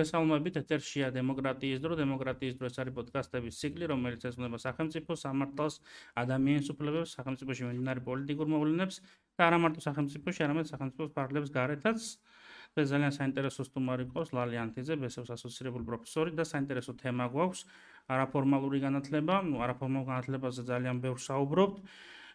მოგესალმებით, ეთერშია დემოკრატიის დრო, დემოკრატიის დრო ეს არის პოდკასტების ციკლი, რომელიც ეძღვნება სახელმწიფო სამართალს, ადამიანის უფლებებს, სახელმწიფოში მიმდინარე პოლიტიკურ მოვლენებს და არა მარტო სახელმწიფოში, არამედ სახელმწიფოს ფარგლებს გარეთაც. ეს ძალიან საინტერესო სტუმარი ყავს ლალი ანთიძე, ბესოს ასოცირებული პროფესორი და საინტერესო თემა გვაქვს არაფორმალური განათლება. არაფორმალურ განათლებაზე ძალიან ბევრს საუბრობთ.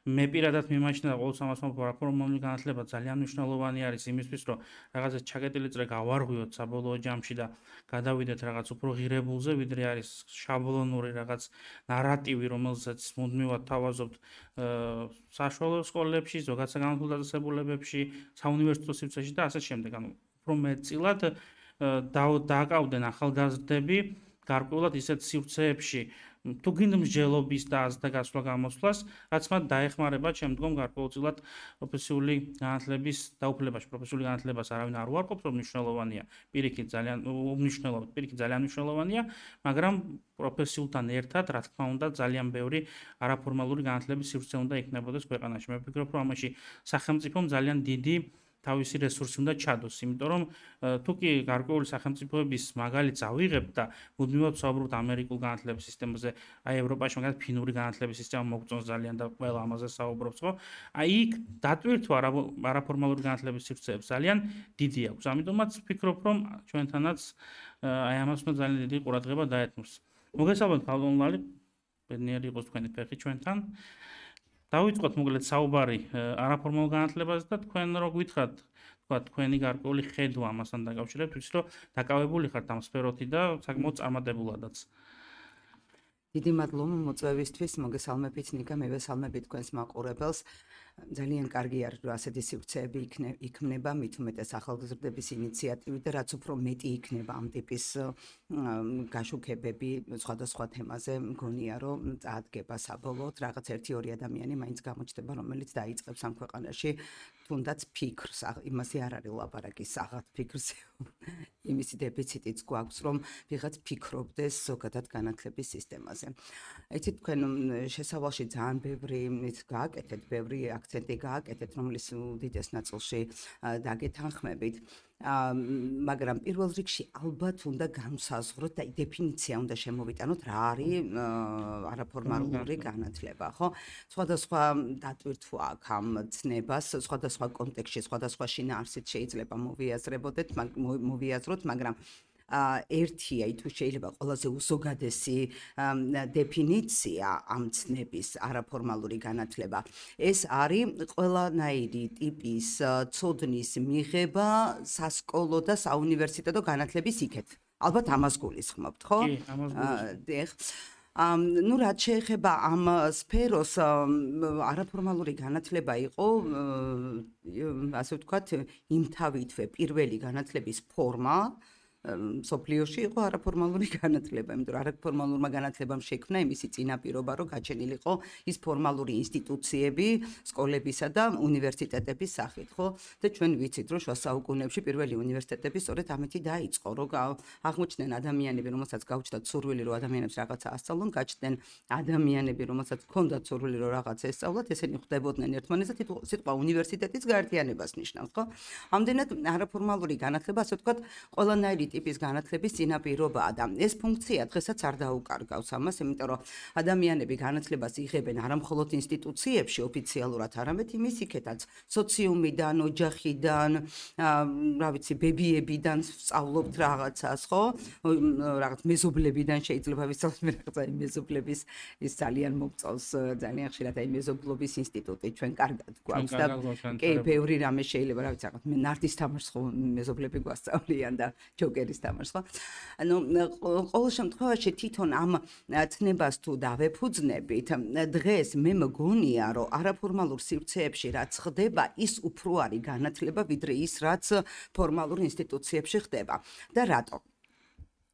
მე პირადად მიმაჩნია ყოველთვის ამას მომბო არაფორმალური განათლება ძალიან მნიშვნელოვანი არის იმისთვის, რომ რაღაცა ჩაკეტილი წრე გავარღვიოთ საბოლოო ჯამში და გადავიდეთ რაღაც უფრო ღირებულზე, ვიდრე არის შაბლონური რაღაც ნარატივი, რომელსაც მუდმივად თავაზობთ საშუალო სკოლებში, ზოგადად საგანმანათლებლო დაწესებულებებში, საუნივერსიტეტო სივრცეში და ასე შემდეგ. ანუ უფრო მეტწილად დააკავდნენ ახალგაზრდები გარკვეულად ისეთ სივრცეებში, თუ გინდა მსჯელობის და აზრთა გასვლა გამოსვლას, რაც მათ დაეხმარება შემდგომ გარკვეულწილად პროფესიული განათლების დაუფლებაში. პროფესიული განათლებას არავინ არ უარყოფს, რომ მნიშვნელოვანია, პირიქით ძალიან მნიშვნელოვანია, მაგრამ პროფესიულთან ერთად, რა თქმა უნდა, ძალიან ბევრი არაფორმალური განათლების სივრცე უნდა იქნებოდეს ქვეყანაში. მე ვფიქრობ, რომ ამაში სახელმწიფომ ძალიან დიდი თავისი რესურსი უნდა ჩადოს, იმიტომ რომ თუ კი გარკვეული სახელმწიფოების მაგალითს ავიღებთ და მუდმივად ვსაუბრობთ ამერიკულ განათლების სისტემაზე, აი ევროპაში მაგალითად ფინური განათლების სისტემა მოგწონს ძალიან და ყველა ამაზე საუბრობს, ხო? აი იქ დატვირთვა არაფორმალური განათლების სივრცეებს ძალიან დიდი აქვს. ამიტომაც ვფიქრობ, რომ ჩვენთანაც აი ამას უნდა ძალიან დიდი ყურადღება დაეთმოს. მოგესალმებით, ქალბატონ ლალი, ბედნიერი იყოს თქვენი ფეხი ჩვენთან. დავიწყოთ მოკლედ საუბარი არაფორმალურ განათლებაზე და თქვენ რო გითხრათ, თქვა თქვენი გარკვეული ხედვა ამასთან დაკავშირებით, ვიცი რომ დაკავებული ხართ ამ სფეროთი და საკმაოდ წარმატებულადაც. დიდი მადლობა მოწვევისთვის, მოგესალმებით ნიკა, მევესალმებით თქვენს მაყურებელს. ძალიან კარგი არის, რომ ასეთი სივრცეები იქმნება, მით უმეტეს ახალგაზრდების ინიციატივით და რაც უფრო მეტი იქნება ამ ტიპის გაშუქებები სხვადასხვა თემაზე, მგონია, რომ წაადგება საბოლოოდ რაღაც 1-2 ადამიანი მაინც გამოჩნდება, რომელიც დაიწყებს ამ ქვეყანაში თუნდაც ფიქრს, იმაზე არ არის ლაპარაკი, საღად ფიქრს. იმისი დეფიციტიც გვაქვს, რომ ვიღაც ფიქრობდეს ზოგადად განათლების სისტემაზე. იცით, თქვენ შესავალში ძალიან ბევრი გააკეთეთ, ბევრი აქცენტი გააკეთეთ, რომლის უდიდეს ნაწილში დაგეთანხმებით. მაგრამ პირველ რიგში ალბათ უნდა განსაზღვროთ და დეფინიცია უნდა შემოვიტანოთ, რა არის არაფორმალური განათლება, ხო? სხვადასხვა დატვირთვა აქვს ამ ცნებას, სხვადასხვა კონტექსტში, სხვადასხვა შინაარსით შეიძლება მოვიაზროთ, მაგრამ ერთია, თუ შეიძლება ყველაზე უზოგადესი დეფინიცია ამ ცნების არაფორმალური განათლება. ეს არის ყველანაირი ტიპის ცოდნის მიღება სასკოლო და საუნივერსიტეტო განათლების იქეთ. ალბათ ამას გულისხმობთ, ხო? კი, ამას გულისხმობთ. რაც შეეხება ამ სფეროს, არაფორმალური განათლება იყო, ასე ვთქვათ, იმთავითვე პირველი განათლების ფორმა. სოფლიოში იყო არაფორმალური განათლება, იმიტომ რომ არაფორმალურმა განათლებამ შექმნა იმისი წინაპირობა, რომ გაჩენილიყო ის ფორმალური ინსტიტუციები სკოლებისა და უნივერსიტეტების სახით, ხო? და ჩვენ ვიცით, რომ შუა საუკუნეებში პირველი უნივერსიტეტები სწორედ ამით დაიწყო, რომ აღმოჩნდნენ ადამიანები, რომელსაც გაუჩნდათ სურვილი, რომ ადამიანებს რაღაცა ასწავლონ, გაჩნდნენ ადამიანები, რომელსაც ჰქონდათ სურვილი, რომ რაღაც ესწავლათ, ესენი ხვდებოდნენ ერთმანეთს და სიტყვა უნივერსიტეტის გაერთიანებას ნიშნავს, ხო? ამდენად არაფორმალური განათლება, ასე ვთქვათ, ყველანაირი ტიპის განათლების წინაპირობაა და ეს ფუნქცია დღესაც არ დაუკარგავს ამას, იმიტომ რომ ადამიანები განათლებას იღებენ არა მხოლოდ ინსტიტუციებში ოფიციალურად, არამედ იმის იქეთაც, სოციუმიდან, ოჯახიდან, რა ვიცი, ბებიებიდან სწავლობთ რაღაცას, ხო? რაღაც მეზობლებიდან შეიძლება ვისწავლოთ, რაღაცა მეზობლების ის ძალიან მოგწონს, ძალიან ხშირად აი მეზობლობის ინსტიტუტი ჩვენ კარგად გვაქვს და კი, ბევრი რამე შეიძლება, რა ვიცი, რაღაც ნარდის თამაშს ხო მეზობლები გვასწავლიან და ჯოკერის თამაშს, ხო? ანუ ყოველ შემთხვევაში თვითონ ამ ცნებას თუ დავეფუძნებით, დღეს მე მგონია, რომ არაფორმალურ სივრცეებში რაც ხდება, ის უფრო არის განათლება, ვიდრე ის, რაც ფორმალურ ინსტიტუციებში ხდება. და რატო?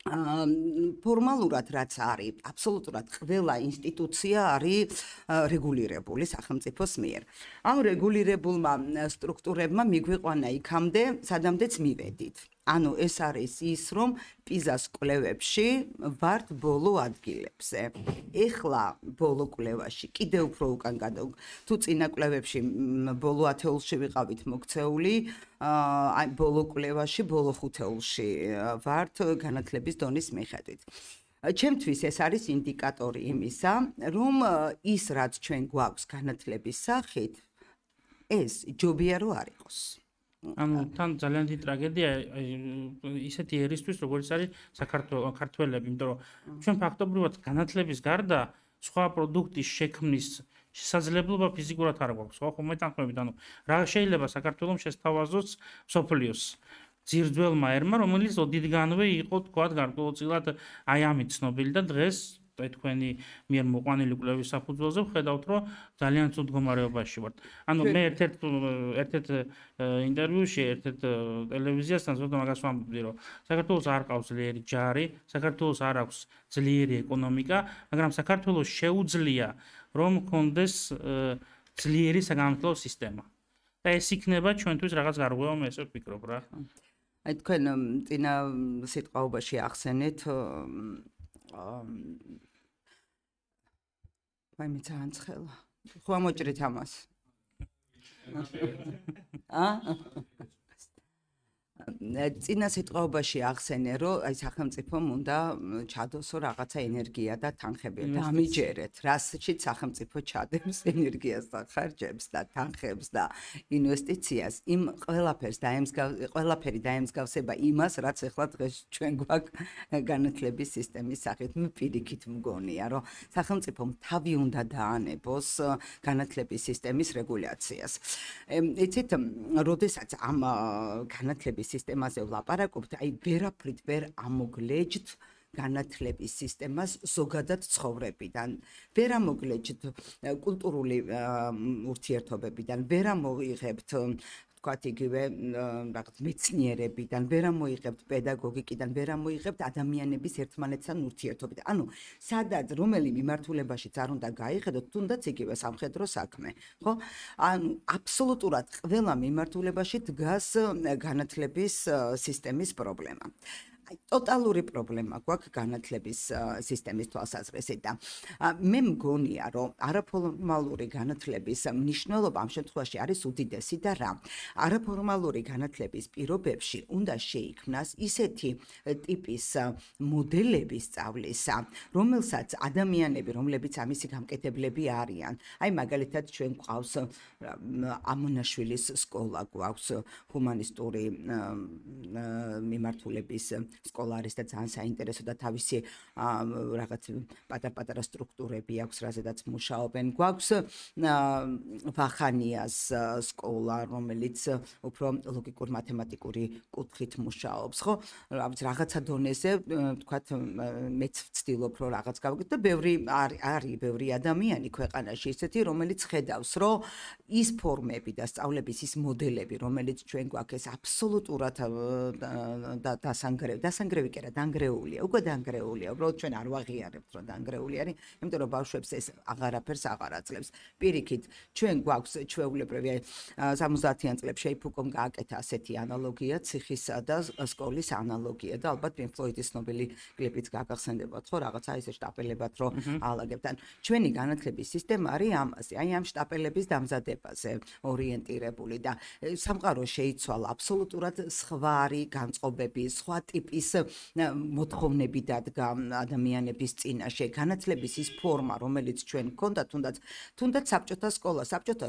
ფორმალურად რაც არის, აბსოლუტურად ყველა ინსტიტუცია არის რეგულირებული სახელმწიფოს მიერ. ამ რეგულირებულმა სტრუქტურებმა მიგვიყვანა იქამდე, სადამდეც მივედით. ანუ ეს არის ის, რომ პიზას კვლევებში ვართ ბოლო ადგილებზე. ეხლა ბოლო კვლევაში კიდევ უფრო უკან თუ წინა კვლევებში ბოლო 10-ში ვიყავით მოქცეული, აი ბოლო კვლევაში ბოლო 5-ში ვართ განათლების დონის მიხედვით. ჩემთვის ეს არის ინდიკატორი იმისა, რომ ის რაც ჩვენ გვაქვს განათლების სახით, ეს ჯობია რომ არ იყოს. ანუ თან ძალიან დიდი ტრაგედია ისეთი ერისთვის, როგორც არის საქართველები, იმიტომ რომ ჩვენ ფაქტობრივად განათლების გარდა სხვა პროდუქტის შექმნის შესაძლებლობა ფიზიკურად არ გვაქვს, ხო, მეტანხმებით, ანუ რა შეიძლება საქართველოს შესთავაზოს სოფლიოს ძირძველმა ერმა, რომელიც ოდითგანვე იყო თქვათ გარკვეულწილად აი ამით ცნობილი და დღეს თქვენი მიერ მოყვანილი კვლევის საფუძველზე ვხედავთ, რომ ძალიან ცუდ მდგომარეობაში ვართ. ანუ მე ერთ-ერთ ინტერვიუში, ერთ-ერთ ტელევიზიასთან ზოგადად მაგას ვამბობდი, რომ საქართველოს არ ყავს ძლიერი ჯარი, საქართველოს არ აქვს ძლიერი ეკონომიკა, მაგრამ საქართველოს შეუძლია რომ გქონდეს ძლიერი საგანმანათლებლო სისტემა. და ეს იქნება ჩვენთვის რაღაც გარღვევა, მე ესე ვფიქრობ რა. აი თქვენ წინა სიტყვაობაში ახსენეთ ვაი მე ძალიან ცხელა. ხო ამოჭრით ამას. წინა სიტყვაობაში ახსენე, რომ აი სახელმწიფომ უნდა ჩადოსო რაღაცა ენერგია და თანხები. დამიჯერეთ, რასშიც სახელმწიფო ჩადებს ენერგიას და ხარჯებს და თანხებს და ინვესტიციას. იმ ყველაფერი დაემსგავსება იმას, რაც ახლა დღეს ჩვენ გვაქვს განათლების სისტემის სახით. მე პირიქით მგონია, რომ სახელმწიფომ თავი უნდა დაანებოს განათლების სისტემის რეგულაციას. იცით, როდესაც ამ განათლების სისტემაზე ვლაპარაკობთ, აი ვერაფრით ვერ ამოგლეჯთ განათლების სისტემას ზოგადად ცხოვრებიდან, ვერ ამოგლეჯთ კულტურული ურთიერთობებიდან, ვერ ამოიღებთ თქვათ იგივე რაღაც მეცნიერებიდან, ვერ ამოიღებთ პედაგოგიკიდან, ვერ ამოიღებთ ადამიანების ერთმანეთთან ურთიერთობიდან. ანუ სადაც რომელი მიმართულებაშიც არ უნდა გაიხედოთ, თუნდაც იგივე სამხედრო საქმე, ხო? ანუ აბსოლუტურად ყველა მიმართულებაში დგას განათლების სისტემის პრობლემა. ტოტალური პრობლემა გვაქვს განათლების სისტემის თვალსაზრისით და მე მგონია, რომ არაფორმალური განათლების მნიშვნელობა ამ შემთხვევაში არის უდიდესი და რა. არაფორმალური განათლების პირობებში უნდა შეიქმნას ისეთი ტიპის მოდელები სწავლისა, რომელსაც ადამიანები, რომლებიც ამისი გამკეთებლები არიან, აი მაგალითად ჩვენ გვყავს ამონაშვილის სკოლა, გვაქვს ჰუმანისტური მიმართულების სკოლა არის და ძალიან საინტერესო და თავისი რაღაც პატარ-პატარა სტრუქტურები აქვს, რაზედაც მუშაობენ. გვაქვს ვახანიას სკოლა, რომელიც უფრო ლოგიკურ-მათემატიკური კუთხით მუშაობს, ხო? რაღაცა დონეზე, თქვათ, მეც ვცდილობ, რომ რაღაც გავიგოთ და არის ბევრი ადამიანი ქვეყანაში ისეთი, რომელიც ხედავს, რომ ის ფორმები და სწავლების ის მოდელები, რომელიც ჩვენ გვაქვს, ეს აბსოლუტურად დასანგრევი კი არა, დანგრეულია, უკვე დანგრეულია, უბრალოდ ჩვენ არ ვაღიარებთ, რომ დანგრეული არის, იმიტომ რომ ბავშვებს ეს აღარაფერს აღარ აძლევს. პირიქით, ჩვენ გვაქვს ჩვეულებრივი 70-იან წლებში ფუკომ გააკეთა ასეთი ანალოგია, ციხისა და სკოლის ანალოგია და ალბათ პინკ ფლოიდის ცნობილი კლიპიც გაგახსენდებათ, ხო, რაღაცა ისე შტაპელებად რო აალაგებთ. ჩვენი განათლების სისტემა არის ამაზე, აი ამ შტაპელების დამზადებაზე ორიენტირებული და სამყარო შეიცვალა აბსოლუტურად სხვარი განწყობები, სხვა ტიპის მოთხოვნები დადგა ადამიანების წინაშე. განათლების ის ფორმა, რომელიც ჩვენ გქონდა, თუნდაც საბჭოთა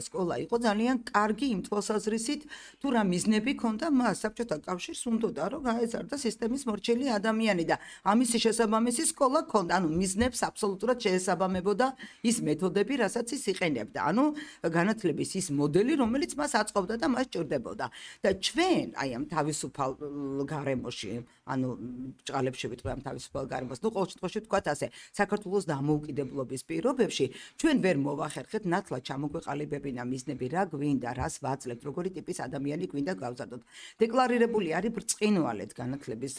სკოლა იყო ძალიან კარგი იმ თვალსაზრისით, თუ რა მიზნები ჰქონდა მას. საბჭოთა კავშირს უნდოდა რომ გაეზარდა სისტემის მორჩილი ადამიანი და ამისი შესაბამისი სკოლა ჰქონდა. ანუ მიზნებს აბსოლუტურად შეესაბამებოდა ის მეთოდები, რასაც ის იყენებდა. ანუ განათლების ის მოდელი, რომელიც მას აწყობდა და მას ჭირდებოდა. და ჩვენ აი ამ თავისუფალ გარემოში ანუ ჭყალებში ვიტყვი ამ თავისუფალ გარემოს. ნუ ყოველ შემთხვევაში ვთქვათ ასე, საქართველოს დამოუკიდებლობის პირობებში ჩვენ ვერ მოვახერხეთ ნათლად ჩამოგვეყალიბებინა მიზნები, რა გვინდა, რას ვაძლევთ, როგორი ტიპის ადამიანი გვინდა გავზარდოთ. დეკლარირებული არის ბრწყინვალედ განათლების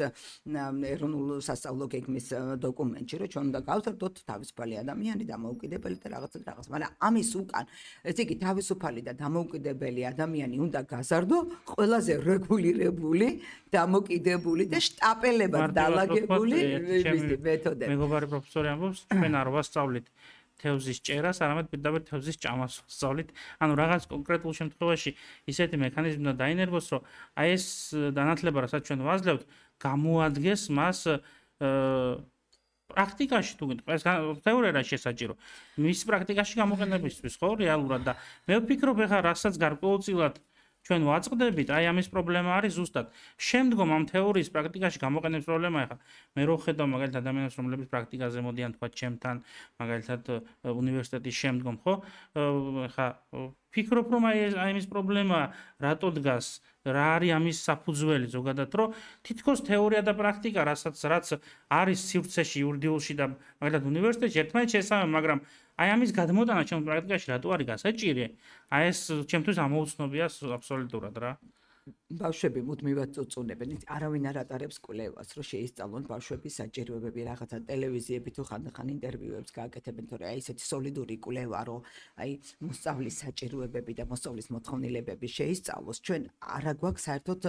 ეროვნულ სასწავლო გეგმის დოკუმენტში, რომ ჩვენ უნდა გავზარდოთ თავისუფალი ადამიანი, დამოუკიდებელი და რაღაც. მაგრამ ამის უკან, ესე იგი თავისუფალი და დამოუკიდებელი ადამიანი უნდა გაზარდო ყველაზე რეგულირებული, დამოკიდებული და შტაპელებად დალაგებული მეთოდები. მეგობარი პროფესორი ამბობს, ჩვენ არ ვასწავლით თევზის ჭერას, არამედ პირდაპირ თევზის ჭამას ვასწავლით. ანუ რაღაც კონკრეტულ შემთხვევაში ისეთი მექანიზმი უნდა დაინერგოს, რომ აი ეს განათლება, რასაც ჩვენ ვაძლევთ, გამოადგეს მას პრაქტიკაში თუ გინდა, ეს თეორია შესაჭირო. მის პრაქტიკაში გამოყენებისთვის, ხო, რეალურად და მე ვფიქრობ, ეხლა რასაც გარკვეულწილად ჩვენ ვაწყდებით, აი ამის პრობლემა არის ზუსტად. შემდგომ ამ თეორიის პრაქტიკაში გამოყენების პრობლემა ეხლა მე რო ხედავ მაგალითად ადამიანებს, რომლებიც პრაქტიკაზე მოდიან თქვა ჩემთან, მაგალითად უნივერსიტეტის შემდგომ, ხო? ეხლა ფიქრობ, რომ აი ამის პრობლემა რატო დგას, რა არის ამის საფუძველი ზოგადად, რომ თითქოს თეორია და პრაქტიკა, რაც არის სივრცეში, იურიდიულში და მაგალითად უნივერსიტეტში ერთმანეთს შესაბამება, მაგრამ აი ამის გადმოტანა ჩემს პრაქტიკაში რატო არის გასაჭირი? აი ეს ჩემთვის ამოუცნობია აბსოლუტურად რა. ბავშვები მუდმივად წუწუნებენ. არავინ არ ატარებს კვლევას, რომ შეისწავლონ ბავშვების საჭიროებები, რაღაცა ტელევიზიები თუ ხანდახან ინტერვიუებს გააკეთებენ, თორე აი ესეთი სოლიდური კვლევა, რომ აი მოსწავლის საჭიროებები და მოსწავლის მოთხოვნილებები შეისწავლოს, ჩვენ არ აგვაქვს საერთოდ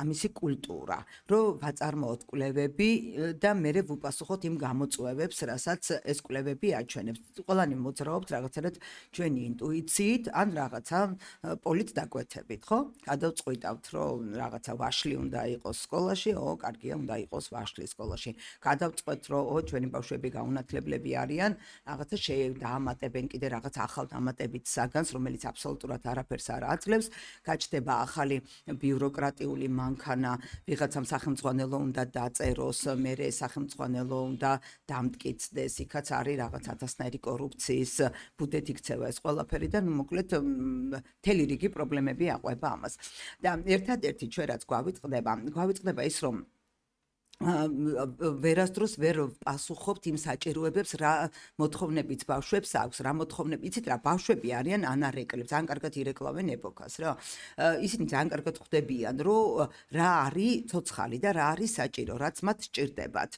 ამისი კულტურა, რომ ვაწარმოოთ კვლევები და მერე ვუპასუხოთ იმ გამოწვევებს, რასაც ეს კვლევები აჩვენებს. ყველანი მოძრაობთ რაღაცნაირად ჩვენი ინტუიციით ან რაღაცა პოლიტ დაკვეთებით, ხო? გადავწყვიტავთ, რომ რაღაცა ვაშლი უნდა იყოს სკოლაში, კარგია, უნდა იყოს ვაშლი სკოლაში. გადავწყვეტ, რომ ჩვენი ბავშვები გაუნათლებლები არიან, რაღაცა დაამატებენ კიდე რაღაც ახალ დამატებით საგანს, რომელიც აბსოლუტურად არაფერს არ აძლევს. გაჩნდება ახალი ბიუროკრატიული მანქანა, ვიღაცამ სახელმწიფო უნდა დაწეროს, მერე სახელმწიფო უნდა დამტკიცდეს, იქაც არის რაღაც ათასნაირი კორუფციის ბუდეთ იქცევა ეს ყველაფერი და მოკლედ მთელი რიგი პრობლემები აყვება ამას. და ერთადერთი ჩვენ რაც გვავიწყდება ის, რომ ვერასდროს ვერ პასუხობთ იმ საჭიროებებს, რა მოთხოვნებიც ბავშვებს აქვს, რა მოთხოვნები, იცით რა, ბავშვები არიან ანარეკლებს, ძალიან კარგად ირეკლავენ ეპოქას, რა. ისინი ძალიან კარგად ხვდებიან, რომ რა არის ცოცხალი და რა არის საჭირო, რაც მათ სჭირდებათ.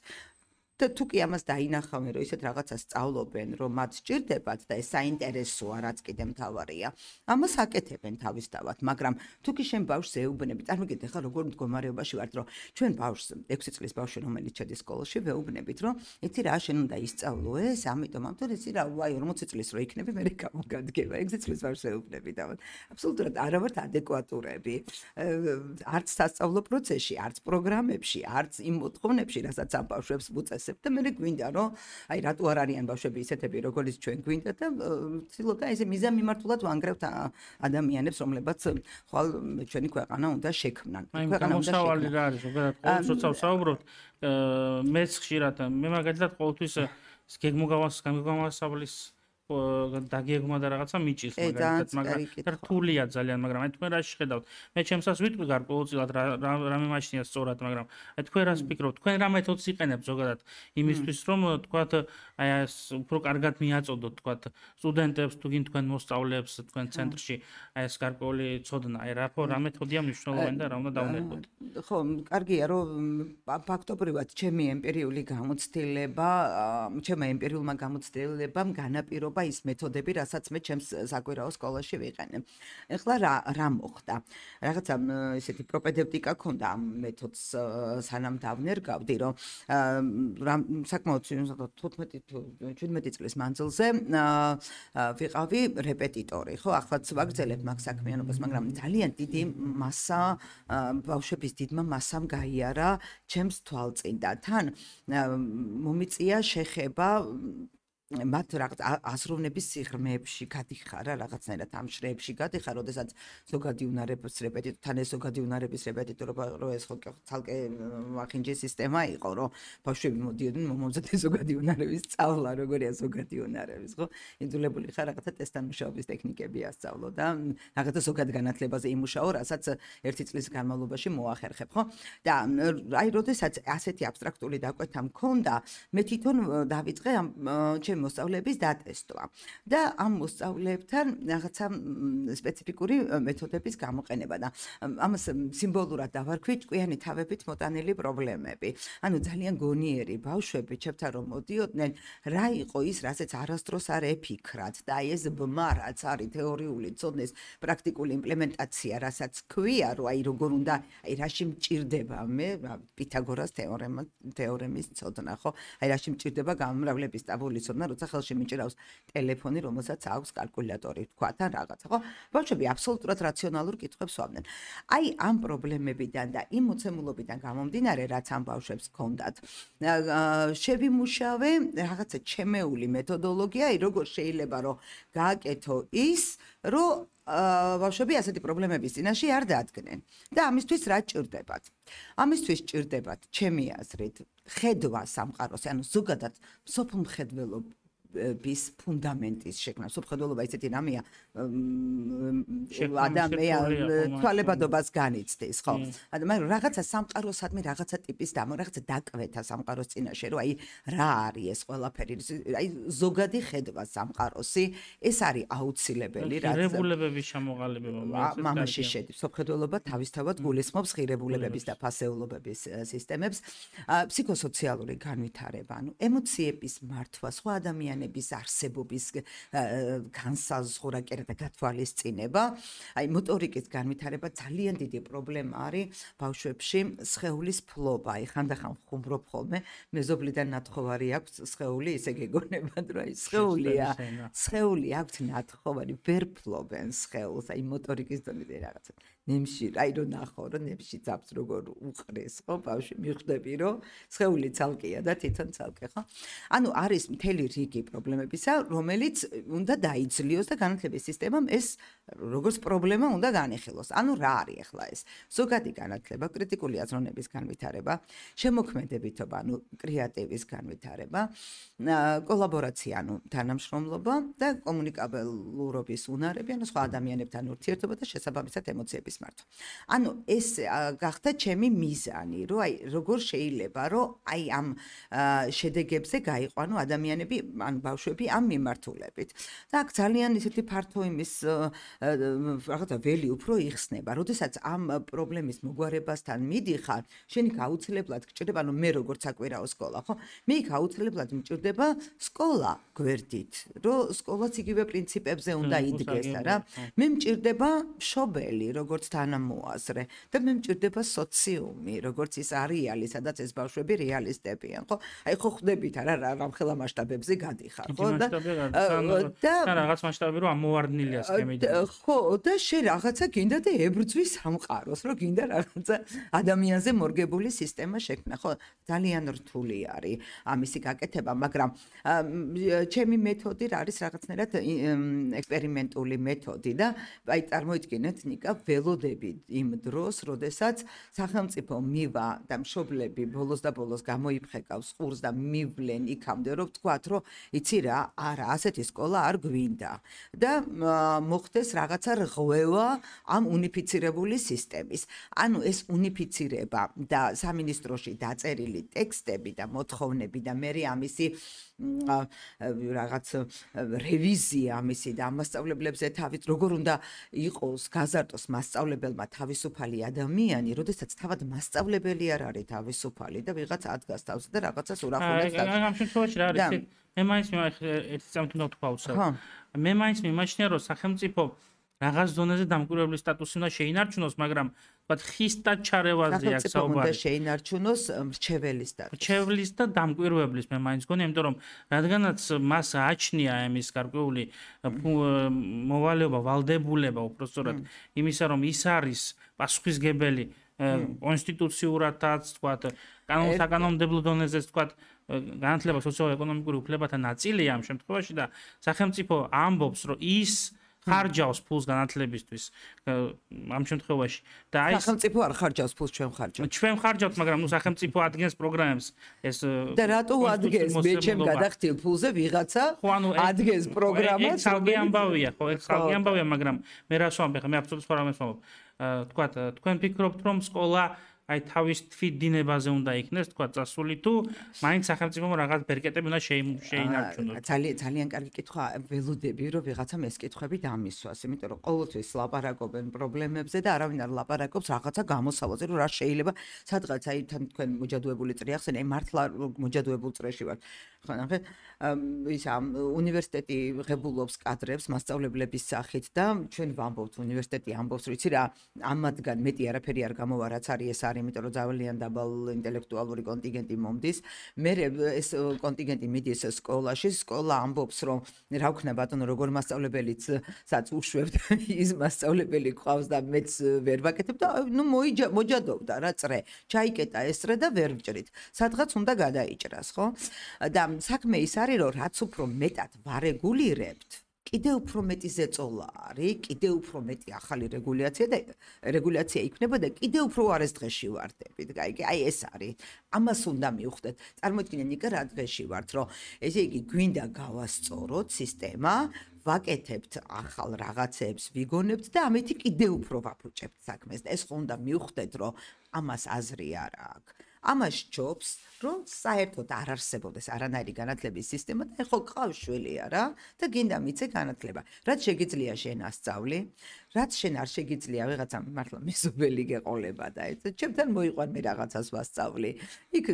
და თუ კი ამას დაინახავენ, რომ ისეთ რაღაცას სწავლობენ, რომ მათ სჭირდებათ და ეს საინტერესოა, რაც კიდე მთავარია, ამას აკეთებენ თავისთავად, მაგრამ თუ კი შენ ბავშვს ეუბნები, წარმოგიდგენთ ახლა როგორ მდგომარეობაში ვართ, რომ ჩვენ ბავშვს 6 წლის ბავშვი რომელიც შედის სკოლაში, ვეუბნებით, რომ იცი რა, შენ უნდა ისწავლო ეს, ამიტომ იცი რა, ვაი 40 წლის რო იქნები, მე გამოგადგება, 6 წლის ბავშვს ეუბნები და აბსოლუტურად არ ვართ ადეკვატურები. არც სასწავლო პროცესში, არც პროგრამებში, არც იმ მოთხოვნებში, რასაც ამ ბავშვებს ვუწესებ და მე გვინდა რომ აი რატო არ არიან ბავშვები ისეთები როგორც ჩვენ გვინდა და ვცდილობ და ესე მიზანმიმართულად ვანგრევთ ადამიანებს რომლებაც ხვალ ჩვენი ქვეყანა უნდა შექმნან. ქვეყანა უნდა შექმნან. რა არის ზოგადად ყოველ როცა ვსაუბრობთ მეც ხშირად მე მაგალითად ყოველთვის გეგმოგამოსავლის დაგეგმა და რაღაცა მიჭირს მაგრამ რთულია ძალიან, მაგრამ აი თქვენ რა შეხედავთ? მე ჩემსაც ვიტყვი გარკვეულწილად რა მიმაჩნია სწორად, მაგრამ აი თქვენ რას ფიქრობთ? თქვენ რა მეთოდს იყენებთ ზოგადად იმისთვის, რომ თქვათ აი ეს უფრო კარგად მიაწოდოთ თქვათ სტუდენტებს თუ გინ თქვენ მოსწავლეებს თქვენ ცენტრში აი ეს გარკვეული ცოდნა, აი რა მეთოდია მნიშვნელოვანი და რა უნდა დავნერგოთ? ხო, კარგია რომ ფაქტობრივად ჩემი ემპირიული გამოცდილება, ჩემმა ემპირიულმა გამოცდილებამ განაპირობა ის მეთოდები, რასაც მე ჩემს საკვირაო სკოლაში ვიყენებ. ეხლა რა მოხდა? რაღაცა ესეთი პროპედევტიკა ქონდა ამ მეთოდს სანამ დავნერგავდი, რომ საკმაოდ 15-17 წლის მანძილზე ვიყავი რეპეტიტორი, ხო? ახლა ვაგრძელებ მაგ საქმიანობას, მაგრამ ძალიან დიდი მასა ბავშვების დიდმა მასამ გაიარა ჩემს თვალწინ და თან მომიწია შეხება მათ რაღაც აზროვნების სიღრმეებში გადიხარ რა რაღაცნაირად ამ შრეებში გადიხარ, როდესაც ზოგადი უნარების რეპეტიტორთან ეს ზოგადი უნარების რეპეტიტორობა რო ეს ხო ცალკე მახინჯი სისტემა იყო, რომ ბავშვები მოდიოდნენ მომზადე ზოგადი უნარების სწავლა, როგორია ზოგადი უნარების, ხო? იძულებული ხარ რაღაცა ტესტთან მუშაობის ტექნიკები ასწავლო და რაღაცა ზოგად განათლებაზე იმუშაო, რასაც ერთი წლის განმავლობაში მოახერხებ, ხო? და აი როდესაც ასეთი აბსტრაქტული დაკვეთა მქონდა, მე თვითონ დავიწყე ამ ჩემი მოსწავლეების დატესტვა და ამ მოსწავლეებთან რაღაცა სპეციფიკური მეთოდების გამოყენება და ამას სიმბოლურად დავარქვი ჭკვიანი თავებით მოტანილი პრობლემები. ანუ ძალიან გონიერი ბავშვები, ჩემთან რომ მოდიოდნენ, რა იყო ის, რასაც არასდროს არ ეფიქრათ და აი ეს ბმა, რაც არის თეორიული ცოდნის პრაქტიკული იმპლემენტაცია, რასაც ქვია, რომ აი როგორ უნდა, აი რაში მჭირდება მე პითაგორას თეორემის ცოდნა, ხო? აი რაში მჭირდება გამომრავლების ტაბულის ცოდნა, როცა ხელში მიჭირავს ტელეფონი, რომელსაც აქვს კალკულატორი, თქვა და რაღაცა, ხო? ბავშვები აბსოლუტურად რაციონალურ კითხვებს ვამდნენ. აი ამ პრობლემებიდან და იმ მოცემულობიდან გამომდინარე, რაც ამ ბავშვებს ჰქონდათ, შევიმუშავე რაღაცა ჩემეული მეთოდოლოგია, აი როგორ შეიძლება რომ გააკეთო ის, რომ ბავშვები ასეთი პრობლემების წინაშე არ დადგნენ. და ამისთვის რა ჭირდებათ? ამისთვის ჭირდებათ, ჩემი აზრით, ხედვა სამყაროს, ანუ ზოგადად სოფლმხედველობის ფუნდამენტის შექმნა. სოფლმხედველობა ისეთი რამეა, ადამიანის თვალებადობას განიცდის, ხო? მაგრამ რაღაცა სამყაროსადმი რაღაცა ტიპის რაღაცა დაკვეთა სამყაროს წინაშე, რომ აი რა არის ეს ყველაფერი, აი ზოგადი ხედვა სამყაროსი, ეს არის აუცილებელი, რაც ღირებულებების ჩამოყალიბება მამაში შედის. სოფლმხედველობა თავისთავად გულისხმობს ღირებულებების და ფასეულობების სისტემებს, ფსიქოსოციალური განვითარება, ანუ ემოციების მართვა, სხვა ადამიანების არსებობის განსაზღვრა და გათვალისწინება, აი მოტორიკის განვითარება ძალიან დიდი პრობლემა არის ბავშვებში, სხეულის ფლობა, აი ხანდახან ხუმრობ ხოლმე, მეზობლიდან ნათხოვარი აქვს სხეული, ისე გეგონებათ, რომ აი სხეული აქვს ნათხოვარი, ვერ ფლობენ სხეულს, აი მოტორიკის დონეზე რაღაცა. ნემში, აი რომ ნახო, რომ ნემში ძაბს როგორ უყრეს, ხო, ბავშვი მიხვდები, რომ სხეული ცალკეა და თვითონ ცალკე, ხო? ანუ არის მთელი რიგი პრობლემებისა, რომელიც უნდა დაიძლიოს და განათლების სისტემამ ეს როგორც პრობლემა უნდა განეხილოს. ანუ რა არის ახლა ეს? ზოგადი განათლება, კრიტიკული აზროვნების განვითარება, შემოქმედებითობა, ანუ კრეატივის განვითარება, კოლაბორაცია, ანუ თანამშრომლობა და კომუნიკაბელურობის უნარები, ანუ სხვა ადამიანებთან ურთიერთობა და შესაბამისად ემოციების მართვა. ანუ ეს გახდა ჩემი მიზანი, რომ აი როგორ შეიძლება, რომ აი ამ შედეგებზე გაიყვანო ადამიანები, ან ბავშვები ამ მიმართულებით. და აქ ძალიან ისეთი ფართო იმის რაღაცა ველი უფრო იხსნება, როდესაც ამ პრობლემის მოგვარებასთან მიდიხარ, შენ იქ აუცილებლად გჭირდება, ანუ მე როგორც საკვირაო სკოლა, ხო? მე იქ აუცილებლად მჭირდება სკოლა გვერდით, რომ სკოლაც იგივე პრინციპებზე უნდა იდგეს რა. მე მჭირდება მშობელი, როგორც თანამოაზრე და მე მჭირდება სოციუმი, როგორც ის არეალი, სადაც ეს ბავშვები რეალისტებიან, ხო? აი ხო ხვდებით რა რამხელა მასშტაბებზე გადიხარ, ხო? და რაღაც მასშტაბი რომ ამოვარდნილია სქემიდან. ხო, და შენ რაღაცა გინდა და ებრძვის სამყაროს, რომ გინდა რაღაცა ადამიანზე მორგებული სისტემა შექმნა, ხო? ძალიან რთული არის ამისი გაკეთება, მაგრამ ჩემი მეთოდი არის რაღაცნაირად ექსპერიმენტული მეთოდი და აი წარმოიდგინეთ ნიკა ველოდები იმ დროს, როდესაც სახელმწიფო მივა და მშობლები ბოლოს და ბოლოს გამოიფხეკავს ყურს და მივლენ იქამდე, რომ ვთქვათ, რომ იცი რა, არა, ასეთი სკოლა არ გვინდა და მოხდეს რაღაცა რღვევა ამ უნიფიცირებული სისტემის. ანუ ეს უნიფიცირება და სამინისტროში დაწერილი ტექსტები და მოთხოვნები და მე ამისი რაღაც რევიზია ამისი და მასწავლებლებზე თავით როგორ უნდა იყოს გაზარდოს მასწავლებელმა თავისუფალი ადამიანი, როდესაც თავად მასწავლებელი არ არის თავისუფალი და ვიღაც ადგას თავს და რაღაცას ურახუნებს. ამ შემთხვევაში რა არის? მე მაინც ერთი წამით უნდა თქვა უცებ. მე მაინც მიმაჩნია, რომ სახელმწიფო რაღაც ზონაზე დამკვირვებლის სტატუსი უნდა შეინარჩუნოს, მაგრამ ვთქვათ ხის და ჩარევაზე აქ საუბარი. უნდა შეინარჩუნოს მრჩეველის სტატუსი. მრჩეველის და დამკვირვებლის მე მაინც გონია, იმიტომ რომ რადგანაც მას აჩნია ამის გარკვეული მოვალეობა, ვალდებულება უпростоრად იმისა, რომ ის არის პასუხისგებელი კონსტიტუციურადაც, ვთქვათ, კანონსაკანონმდებლო დონეზეც, ვთქვათ, განათლება სოციო-ეკონომიკური უფლებათა ნაწილია ამ შემთხვევაში და სახელმწიფო ამბობს, რომ ის ხარჯავს ფულს განათლებისთვის ამ შემთხვევაში და აი სახელმწიფო არ ხარჯავს ფულს, ჩვენ ხარჯავთ, მაგრამ ნუ სახელმწიფო ადგენს პროგრამებს ეს და რატო ადგენს მე ჩემ გადახდილ ფულზე ვიღაცა ადგენს პროგრამას ხალხი ამბავია ხო ეს ხალხი ამბავია მაგრამ მე რას ვამბე მე აბსოლუტურად სხვა რამეს ვამბობ თქვათ თქვენ ფიქრობთ რომ სკოლა აი თავის თვითდინებაზე უნდა იქნეს, თქვა წასული თუ მაინც სახელმწიფომ რაღაც ბერკეტები უნდა შეინარჩუნოს. ძალიან კარგი კითხვა, ველოდები რომ ვიღაცამ ეს კითხვები დამისვას, იმიტომ რომ ყოველთვის ლაპარაკობენ პრობლემებზე და არავინ არ ლაპარაკობს რაღაცა გამოსავალზე, რომ რა შეიძლება სადღაც აი თან თქვენ მოჯადოებული წრე ახსენე, აი მართლა მოჯადოებულ წრეში ვარ. ხო ნახე, ის უნივერსიტეტი ღებულობს კადრებს მასწავლებლების სახით და ჩვენ ვამბობთ უნივერსიტეტი ამბობს, რომ იცი რა, ამათგან მეტი არაფერი არ გამოვა, რაც არის ეს არის იმიტომ რომ ძალიან დაბალ ინტელექტუალური კონტინგენტი მომდის. მე ეს კონტინგენტი მიდის სკოლაში, სკოლა ამბობს რომ რა ვქნა ბატონო როგორ მასწავლებელიცაც უშვებთ ის მასწავლებელი ყავს და მეც ვერ ვაკეთებ და ნუ მოჯადოვდა რა წრე. ჩაიკეტა ეს წრე და ვერ ვჭრით. სადღაც უნდა გადაიჭრას, ხო? და საქმე ის არის რომ რაც უფრო მეტად ვარეგულირებთ კიდევ უფრო მეტი ზეწოლა არის, კიდევ უფრო მეტი ახალი რეგულაცია იქნება და კიდევ უფრო არის დღეში ვარდებით. აი ეს არის. ამას უნდა მივხვდეთ. წარმოიდგინე ნიკა რა დღეში ვართ, რომ ესე იგი გვინდა გავასწოროთ სისტემა, ვაკეთებთ ახალ რაღაცებს, ვიგონებთ და ამეთი კიდევ უფრო ვაფუჭებთ საქმეს. ეს ხო უნდა მივხვდეთ, რომ ამას აზრი არ აქვს. ამას ჯობს, რომ საერთოდ არ არსებობდეს არანაირი განათლების სისტემა და ხო გყავს შვილი არა და გინდა მიცე განათლება. რაც შეგიძლია შენ ასწავლი, რაც შენ არ შეგიძლია ვიღაცამ მართლა მეზობელი გეყოლება და ეს ჩემთან მოიყვან მე რაღაცას ვასწავლი. იქ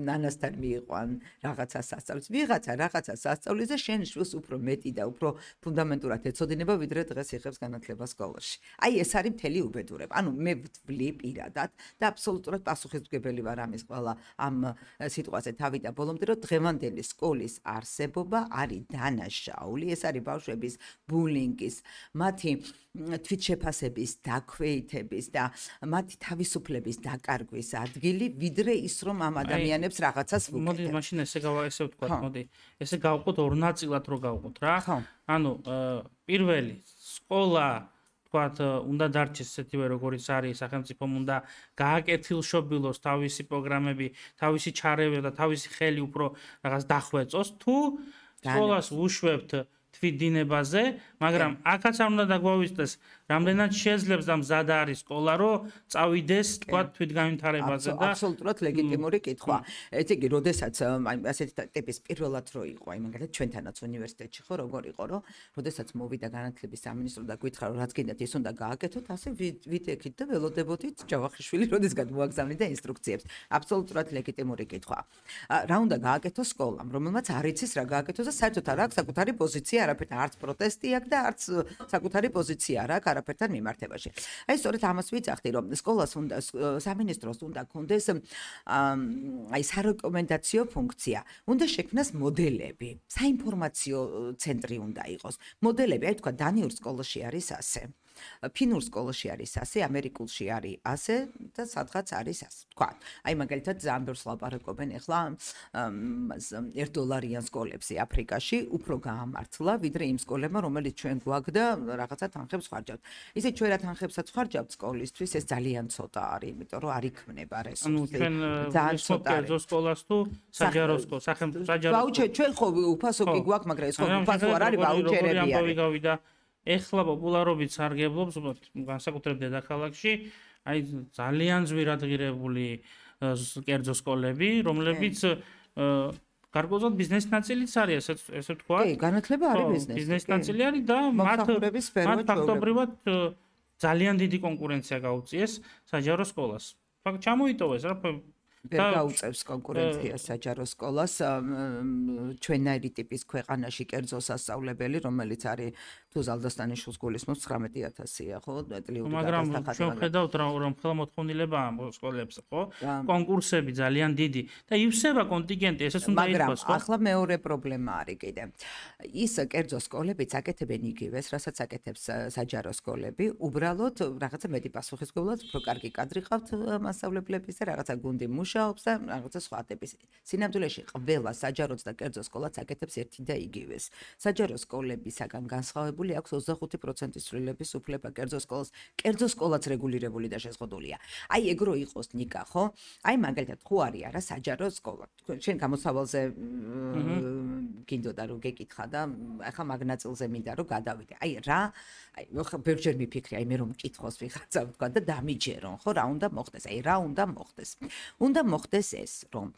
ნანასთან მიიყვან რაღაცას ასწავლის. ვიღაცა რაღაცას ასწავლის და შენ შვილს უფრო მეტი და უფრო ფუნდამენტურად ეცოდინება ვიდრე დღეს იღებს განათლება სკოლაში. აი ეს არის მთელი უბედურება. ანუ მე ვთვლი პირადად და აბსოლუტურად პასუხისმგებელი ვარ ამის ყველა ამ სიტყვაზე თავი და ბოლომდე რომ დღევანდელი სკოლის არსებობა არის დანაშაული. ეს არის ბავშვების ბულინგის, მათი თვითშეფასების, დაქვეითების და მათი თავისუფლების დაკარგვის ადგილი, ვიდრე ის რომ ამ ადამიანებს რაღაცას ვუკეთებთ. მოდი მაშინ ესე ვთქვათ, მოდი. ესე გავყოთ ორ ნაწილად რო გავყოთ რა. ანუ პირველი სკოლა თქვათ უნდა დარჩეს ესეთივე როგორიც არის, სახელმწიფომ უნდა გააკეთილშობილოს თავისი პროგრამები, თავისი ჩარევა და თავისი ხელი უფრო რაღაც დახვეწოს თუ სკოლას უშვებთ თვითდინებაზე, მაგრამ აქაც არ უნდა დაგვავიწყდეს რამდენად შეძლებს და მზად არის სკოლა რომ წავიდეს თქვათ თვითგანვითარებაზე და აბსოლუტურად ლეგიტიმური კითხვა. ესე იგი, როდესაც აი ასეთი ტიპის პირველად რო იყო, აი მაგალითად ჩვენთანაც უნივერსიტეტში ხო როგორ იყო, რომ როდესაც მოვიდა განათლების სამინისტრო და გითხრა რომ რაც გინდათ ის უნდა გააკეთოთ, ასე ვიდექით და ველოდებოდით ჯავახიშვილი როდესგან მოაგზავნიდა ინსტრუქციებს. აბსოლუტურად ლეგიტიმური კითხვა. რა უნდა გააკეთოს სკოლამ, რომელმაც არ იცის რა გააკეთოს და საერთოდ არ აქვს საკუთარი პოზიცია, არაფერთან არც პროტესტი აქვს და არც საკუთარი პოზიცია არ აქვს არაფერთან მიმართებაში. აი სწორედ ამას ვიცახდი, რომ სკოლას უნდა სამინისტროს უნდა კონდეს აი სარეკომენდაციო ფუნქცია. უნდა შექმნას მოდელები, საინფორმაციო ცენტრი უნდა იყოს. მოდელები, აი თქვა დანიურ სკოლაში არის ასე. ფინურ სკოლაში არის ასე, ამერიკულში არის ასე და სადღაც არის ასე. თქვა, აი მაგალითად ძალიან ბევრს ლაპარაკობენ ახლა $1 სკოლებში აფრიკაში უფრო გაამართლა, ვიდრე იმ სკოლებმა, რომელიც ჩვენ გვაქვს და რაღაცა თანხებს ხარჯავთ. ისე ჩვენ რა თანხებსაც ხარჯავთ სკოლისთვის, ეს ძალიან ცოტა არის, იმიტომ რომ არ იქმნება რესურსი. ძალიან ცოტა არის სკოლას თუ საჯარო სკოლა, სახელმწიფო საჯარო. ვაუჩერი ჩვენ ხო უფასო კი გვაქვს, მაგრამ ეს ხო უფასო არ არის, ვაუჩერები არის. ეხლა პოპულარობით სარგებლობს განსაკუთრებით დედაქალაქში, აი ძალიან ძვირადღირებული კერძო სკოლები, რომლებიც გარკვეულწილად ბიზნესის ნაწილიც არის, ესე ვთქვა. კი, განათლება არის ბიზნესი. ბიზნესის ნაწილი არის და მათ ფაქტობრივად ძალიან დიდი კონკურენცია გაუწიეს საჯარო სკოლას. ფაქტ ჩამოიტოვეს რა ვერ გაუწევს კონკურენციას საჯარო სკოლას ჩვენაირი ტიპის ქვეყანაში კერძო სასწავლებელი, რომელიც არის თუ ზალდასტანიშვილს გულისხმობს 19,000-ია, ხო? მაგრამ ჩვენ ხედავთ რომ ხელმოთხოვნილება ამ სკოლებს, ხო? კონკურსები ძალიან დიდი და ივსება კონტინგენტი, ესეც უნდა ითქვას, ხო? მაგრამ ახლა მეორე პრობლემა არის კიდე. ის კერძო სკოლებიც აკეთებენ იგივეს, რასაც აკეთებს საჯარო სკოლები, უბრალოდ რაღაცა მეტი პასუხისმგებლად, უფრო კარგი კადრი ყავთ მასწავლებლების და რაღაცა გუნდი მუშაობს და რაღაცა სხვა ტიპის. სინამდვილეში ყველა საჯაროც და კერძო სკოლაც აკეთებს ერთი და იგივეს. საჯარო სკოლებისაგან განსხვავებული აქვს 25% ცვლილების უფლება კერძო სკოლაც რეგულირებული და შეზღუდულია. აი ეგ რო იყოს ნიკა, ხო? აი მაგალითად ხო არის არა საჯარო სკოლა. შენ გამოსავალზე გინდოდა რომ გეკითხა და ახლა მაგ ნაწილზე მინდა რომ გადავიდე. აი რა, აი ბევრჯერ მიფიქრე, აი მე რომ მკითხოს ვიღაცა ვთქვა და დამიჯერონ, ხო, რა უნდა მოხდეს? აი რა უნდა მოხდეს? უნდა მოხდეს ეს, რომ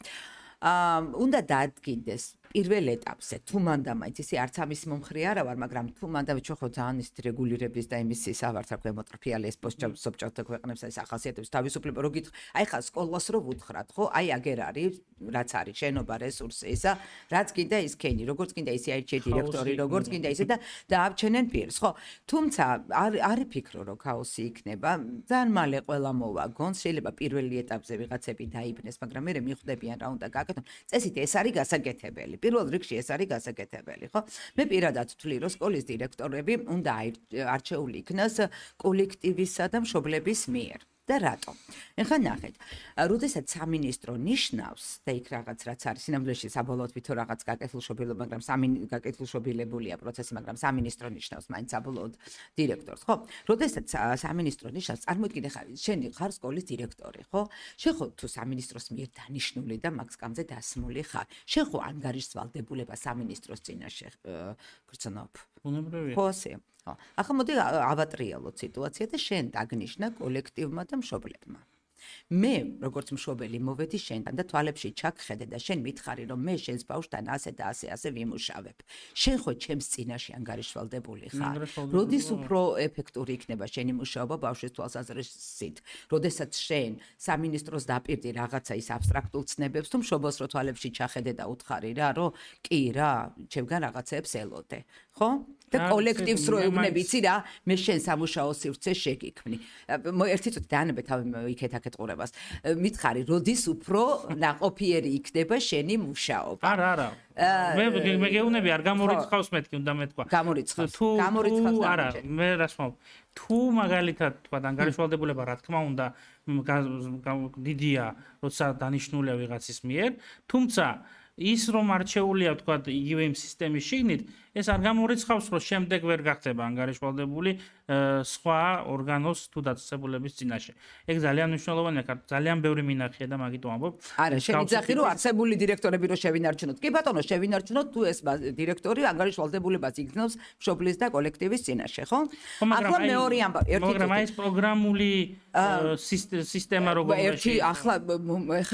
უნდა დაადგინდეს პირველ ეტაპზე თუ მანდა მაინც ისე არც ამის მომხრე არა ვარ, მაგრამ თუ მანდა ჩვენ ხო ძალიან ის რეგულირების და იმის ავართ რა ქვემოტრფიალი ეს პოსტსობჭოთა ქვეყნებს ეს ახასიათებს თავისუფლება რო გითხრა, აი ხა სკოლას რო ვუთხრათ, ხო? აი აგერ არის, რაც არის შენობა, რესურსი ისა, რაც კიდე ის ქენი, როგორც კიდე ისე აირჩიე დირექტორი, როგორც კიდე ისე და დააბჩენენ პირს, ხო? თუმცა არ ფიქრო რომ ქაოსი იქნება, ძალიან მალე ყველა მოვაგონს, შეიძლება პირველი ეტაპზე ვიღაცები დაიბნეს, მაგრამ მე მიხვდებიან რა უნდა გააკეთონ. წესით ეს არის გასაკეთებელი. პირველ რიგში ეს არის გასაკეთებელი, ხო? მე პირადად ვთვლი, რომ სკოლის დირექტორები უნდა არჩეული იქნას კოლექტივისა და მშობლების მიერ. და რატო? ეხლა ნახეთ, როდესაც სამინისტრო ნიშნავს და იქ რაღაც რაც არის, სინამდვილეში საბოლოოდ ვითო რაღაც გაკეთილშობილება, მაგრამ გაკეთილშობილებულია პროცესი, მაგრამ სამინისტრო ნიშნავს მაინც საბოლოოდ დირექტორს, ხო? როდესაც სამინისტრო ნიშნავს, წარმოიდგინე ხარ, შენ ხარ სკოლის დირექტორი, ხო? შენ ხო თუ სამინისტროს მიერ დანიშნული და მაგ სკამზე დასმული ხარ, შენ ხო ანგარიშს ვალდებულება სამინისტროს წინაშე გრძნობ. ბუნებრივია. ხო ასე. ახლა მოდი ავატრიალოთ სიტუაცია და შენ დაგნიშნა კოლექტივმა და მშობლებმა. მე როგორც მშობელი მოვედი შენთან და თვალებში ჩაგხედე და შენ მითხარი რომ მე შენს ბავშვთან ასე და ასე ვიმუშავებ. შენ ხო ჩემს წინაშე ანგარიშვალდებული ხარ. როდის უფრო ეფექტური იქნება შენი მუშაობა ბავშვის თვალსაზრისით? როდესაც შენ სამინისტროს დაპირდი რაღაცა ის აბსტრაქტულ ცნებებს თუ მშობელს რო თვალებში ჩახედე და უთხარი რა რომ კი რა ჩემგან რაღაცებს ელოდე. ხო? და კოლექტივს რო ეუბნები, იცი რა, მე შენ სამუშაო სივრცე შეგიქმნი. ერთი წუთი დაანებე თავი იქეთ-აქეთ ყურებას. მითხარი, როდის უფრო ნაყოფიერი იქნება შენი მუშაობა? არა. მე გეუბნები, არ გამორიცხავს მეთქი, უნდა მეთქვა. გამორიცხავს. არა, მე რას ვამბობ. თუ მაგალითად თქვა ანგარიშვალდებულება, რა თქმა უნდა, დიდია, როცა დანიშნულია ვიღაცის მიერ, თუმცა ის რომ არჩეულია თქვა იგივე იმ სისტემის შიგნით, ეს არ გამორიცხავს, რომ შემდეგ ვერ გახდება ანგარიშვალდებული სხვა ორგანოს თუ დაწესებულების წინაშე. ეგ ძალიან მნიშვნელოვანია, ძალიან ბევრი მინახია და მაგით ვამბობ. არა, შემიძახი რომ არსებული დირექტორები რო შევინარჩუნოთ. კი ბატონო, შევინარჩუნოთ თუ ეს დირექტორი ანგარიშვალდებულებას იგრძნობს მშობლის და კოლექტივის წინაშე, ხო? ახლა მეორე ამბავი, ერთი მაგრამ აი ეს პროგრამული სისტემა ერთი ახლა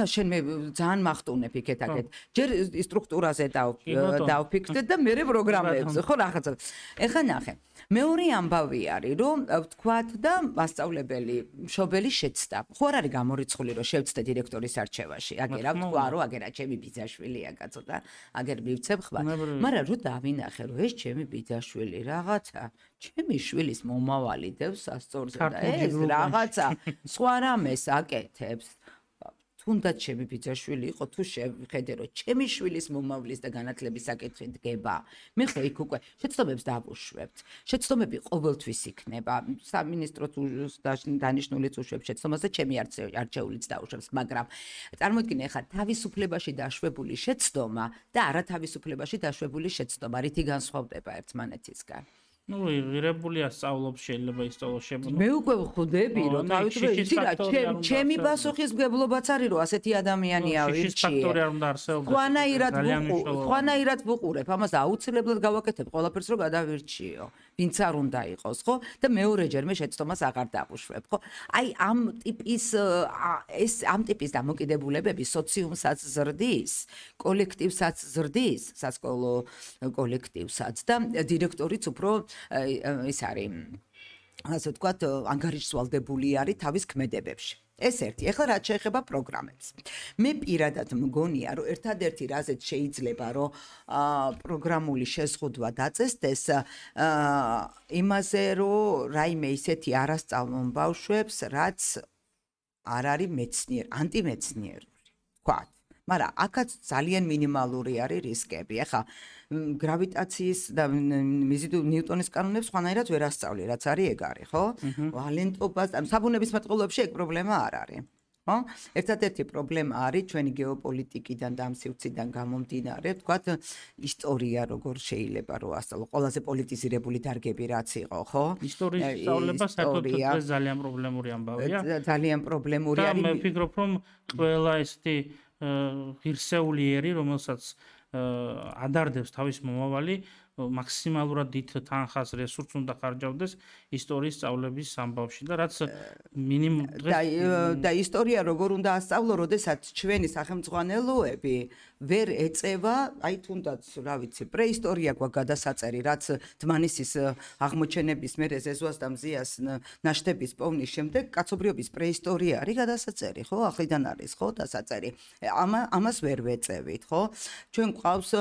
შენ მე ძალიან მახტუნებ იქეთ-აქეთ. ჯერ სტრუქტურაზე დავფიქრდე და მე პროგრამებზე, ხო რაღაცა. ეხლა ნახე. მეორე ამბავი არის, რომ ვთქვათ და მასწავლებელი მშობელი შეცდა. ხო არ არის გამორიცხული, რომ შევცდე დირექტორის არჩევაში. აგერ აქვს თქვა, რომ აგერა ჩემი ბიძაშვილია, კაცო და აგერ მივცემ ხმარ. მაგრამ რო დავინახე, რომ ეს ჩემი ბიძაშვილი რაღაცა ჩემი შვილის მომავალი დევს სასწორზე და ეს რაღაცა სხვა რამეს აკეთებს. თუნდაც ჩემი ბიძაშვილი იყო, თუ შევხედე, რომ ჩემი შვილის მომავლის და განათლების საკითხი დგება, მე ხო იქ უკვე შეცდომებს დავუშვებთ. შეცდომები ყოველთვის იქნება. სამინისტრო თუ დანიშნულიც უშვებს შეცდომას და ჩემი არჩეულიც დაუშვებს, მაგრამ წარმოიდგინე ხა თავისუფლებაში დაშვებული შეცდომა და არათავისუფლებაში დაშვებული შეცდომა, რითი განსხვავდება ერთმანეთისგან. ღირებულია სწავლობს, შეიძლება ისწავლოს შემო. მე უკვე ვხვდები, რომ თავისუფლება, ჩემი პასუხისმგებლობაც არის, რომ ასეთი ადამიანია ვირჩიე. ხვანაირად ვუყურებ, ამას აუცილებლად გავაკეთებ, ყველაფერს რომ გადავირჩიო. ვინც არ უნდა იყოს, ხო? და მეორეჯერ მე შეცდომას აღარ დავუშვებ, ხო? აი ამ ტიპის დამოკიდებულებები სოციუმსაც ზრდის, კოლექტივსაც ზრდის, სასკოლო კოლექტივსაც და დირექტორიც უფრო ის არის, ასე ვთქვათ, ანგარიშვალდებული არის თავის ქმედებებში. ეს ერთი. ეხლა რაც შეეხება პროგრამებს. მე პირადად მგონია, რომ ერთადერთი რაზეც შეიძლება, რომ პროგრამული შეზღუდვა დაწესდეს, იმაზე, რომ რაიმე ისეთი არასწავლონ ბავშვებს, რაც არ არის მეცნიერ, ანტიმეცნიერული, ვთქვათ. მაგრამ აქაც ძალიან მინიმალური არის რისკები. ახლა გრავიტაციის და ნიუტონის კანონებს სხვანაირად ვერ ასწავლი, რაც არის ეგ არის, ხო? ვალენტობას, საბუნებისმეტყველოებში ეგ პრობლემა არ არის. ხო? ერთადერთი პრობლემა არის ჩვენი გეოპოლიტიკიდან და ამ სივრციდან გამომდინარე, ვთქვათ, ისტორია როგორ შეიძლება რომ ასწავლო, ყველაზე პოლიტიზირებული დარგები რაც იყო, ხო? ისტორიის სწავლება საერთოდ ძალიან პრობლემური ამბავია. ძალიან პრობლემური არის. და მე ვფიქრობ, რომ ყველა ესეთი ღირსეულიერი, რომელსაც ადარდებს თავის მომავალი, მაქსიმალურად დიდ თანხას რესურსს უნდა ხარჯავდეს ისტორიის სწავლების ამბავში და რაც მინიმუმ და ისტორია როგორ უნდა ასწავლო, როდესაც ჩვენი სახელმძღვანელოები ვერ ეწევა, აი თუნდაც, რა ვიცი, პრეისტორია გვაქვს გადასაწერი, რაც დმანისის აღმოჩენების მერე ზეზუას და მზიას ნაშთების პოვნის შემდეგ კაცობრიობის პრეისტორია არის გადასაწერი, ხო? ახლიდან არის, ხო, დასაწერი. ამას ვერ ვეწევით, ხო? ჩვენ გვყავს,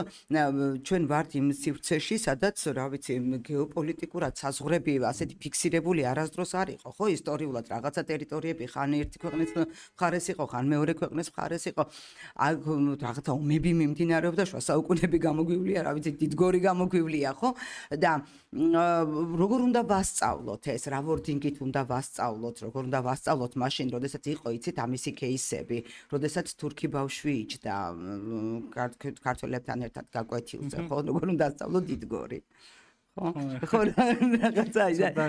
ჩვენ ვართ იმ სივრცეში, სადაც, რა ვიცი, გეოპოლიტიკურად საზღვრები ასეთი ფიქსირებული არასდროს არ იყო, ხო? ისტორიულად რაღაცა ტერიტორიები ხან ერთი ქვეყნის მხარეს იყო, ხან მეორე ქვეყნის მხარეს იყო. აქ რაღაცა ომები მიმდინარეობდა, შუა საუკუნეები გამოგვივლია, რა ვიცი, დიდგორი გამოგვივლია, ხო? და როგორ უნდა ვასწავლოთ ეს, რა ვორდინგით უნდა ვასწავლოთ, როგორ უნდა ვასწავლოთ მაშინ, როდესაც იყო, იცით, ამისი кейსები, როდესაც თურქი ბავშვი იჯდა ქართველებთან ერთად გაკვეთილზე, ხო? როგორ უნდა ასწავლოთ დიდგორი. ხო, რაღაცა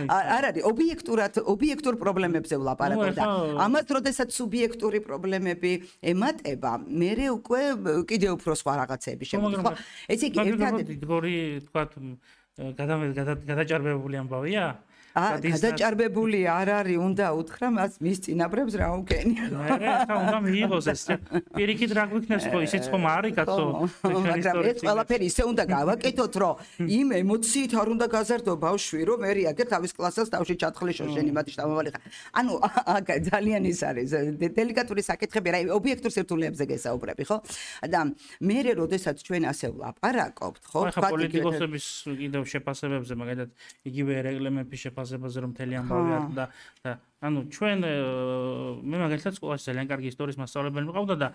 არ არის ობიექტურ პრობლემებზე ვლაპარაკობ და ამას როდესაც სუბიექტური პრობლემები ემატება, მე უკვე კიდევ უფრო სხვა რაღაცები შემოდის, ხო? ესე იგი ერთადერთი დიდგორი, თქვათ, გადაჭარბებული ამბავია? გადაჭარბებული არ არის, უნდა უთხრა მას მის წინაპრებს რა უკენია. ხა უნდა მიიღოს ეს. პირიქით რა გვიქნეს ხო, ისიც ხომ არის კაცო. მაგრამ ეს ყველაფერი ისე უნდა გავაკეთოთ, რომ იმ ემოციით არ უნდა გაზარდო ბავშვი, რომ მე რეაგერ თავის კლასას თავში ჩათხრიშო შენი მათი შთამომავალი ხარ. ანუ აქ ძალიან ის არის დელიკატური საკითხები, რა ობიექტურ სირთულეებზე გესაუბრები, ხო? და მე როდესაც ჩვენ ასე ვლაპარაკობთ, ხო? ხა პოლიტიკოსების კიდევ შეფასებებზე, მაგალითად, იგივე ერეკლე მეფის შეფასებაზე რომ მთელი ამბავი არ და ანუ ჩვენ მე მაგალითად სკოლაში ძალიან კარგი ისტორიის მასწავლებელი მიყავდა და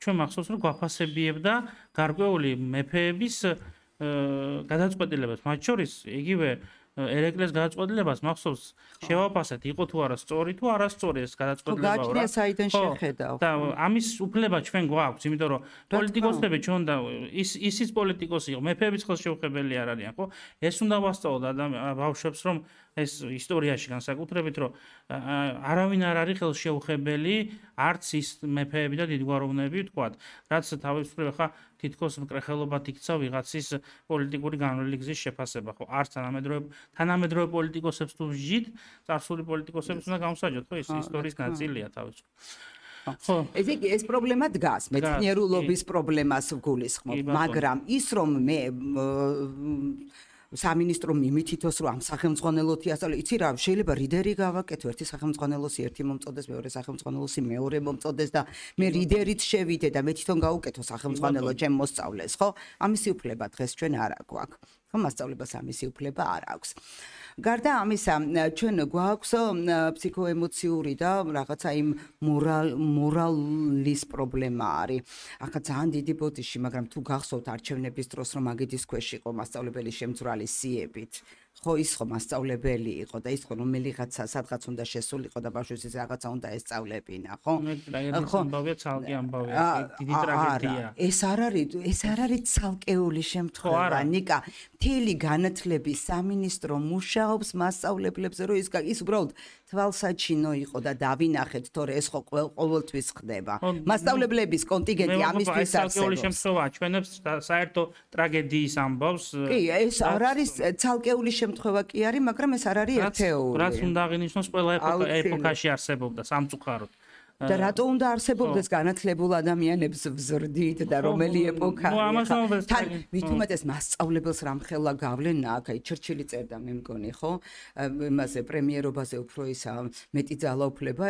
ჩვენ მახსოვს რომ გვაფასებიებდა გარკვეული მეფეების გადაწყვეტილებას, მათ შორის იგივე ერეკლეს გადაწყვეტილებას მახსოვს შევაფასეთ, იყო თუ არა სწორი თუ არასწორი ეს გადაწყვეტილება რა. გაჩნია საიდან შეხედავ. და ამის უფლება ჩვენ გვაქვს, იმიტომ რომ პოლიტიკოსები ჩვენ და ისიც პოლიტიკოსი იყო, მეფეების ხელშეუხებელი არ არიან, ხო? ეს უნდა ვასწავლოთ ბავშვებს, რომ ეს ისტორიაში განსაკუთრებით, რომ არავინ არ არის ხელშეუხებელი, არც ის მეფეები და დიდგვაროვნები, ვთქვათ, რაც თავისუფლება ხა თითქოს მკრეხელობად იქცა ვიღაცის პოლიტიკური განვლილი გზის შეფასება, ხო? არც თანამედროვე პოლიტიკოსებს თუ ვჟით, წარსული პოლიტიკოსებს უნდა გამოსაჯოთ, ხო? ეს ისტორიის ნაწილია თავისუფლად. ხო. ესე იგი ეს პრობლემა დგას, მეცნიერულობის პრობლემას ვგულისხმობ, მაგრამ ის რომ მე სამინისტრო მიმითითოს რომ ამ სახელმძღვანელოთი ასწავლე, იცი რა, შეიძლება რიდერი გავაკეთო, ერთი სახელმძღვანელოსი ერთი მომწოდეს, მეორე სახელმძღვანელოსი მეორე მომწოდეს და მე რიდერით შევიდე და მე თვითონ გავუკეთო სახელმძღვანელო ჩემ მოსწავლეს, ხო? ამისი უფლება დღეს ჩვენ არ აქვს. ხო, მასწავლებას ამისი უფლება არ აქვს. გარდა ამისა, ჩვენ გვაქვს ფსიქოემოციური და რაღაცა იმ მორალის პრობლემა არის. ახლა ძალიან დიდი ბოდიში, მაგრამ თუ გახსოვთ არჩევნების დროს რომ მაგიდის ქვეშ იყო მასწავლებელი შემძვრალი სიებით. ხო, ის ხო მასწავლებელი იყო და ის ხო რომელიღაცა სადღაც უნდა შესულიყო და ბავშვებს ის რაღაცა უნდა ესწავლებინა, ხო? ხო, ამბავია ცალკე ამბავია, დიდი ტრაგედია. ეს არ არის ცალკეული შემთხვევა, ნიკა. მთელი განათლების სამინისტრო მუშაობს მასწავლებლებზე, რომ ის უბრალოდ თვალსაჩინო იყო და დავინახეთ, თორე ეს ხო ყოველთვის ხდება. მასწავლებლების კონტინგენტი ამისთვის არსებობს. ცალკეული შემთხვევა ჩვენებს საერთო ტრაგედიის ამბავს. კი, ეს არ არის ცალკეული შემთხვევა კი არის, მაგრამ ეს არ არის ერთეული. რაც უნდა აღინიშნოს ყველა ეპოქაში არსებობდა სამწუხაროდ. და რატო უნდა არსებობდეს განათლებულ ადამიანებს ვზრდით და რომელი ეპოქა თან მithumetes მასწავლებელს რამხელა გავლენა აქ აი ჩერჩილი წერდა მე მგონი ხო იმაზე პრემიერობაზე უფრო ისა მეტი ძალაუფლება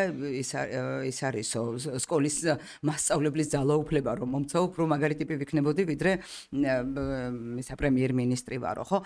ის არისო სკოლის მასწავლებლის ძალაუფლება რომ მომცა უფრო მაგარი ტიპი ვიქნებოდი ვიდრე ისა პრემიერ-მინისტრი ვარო ხო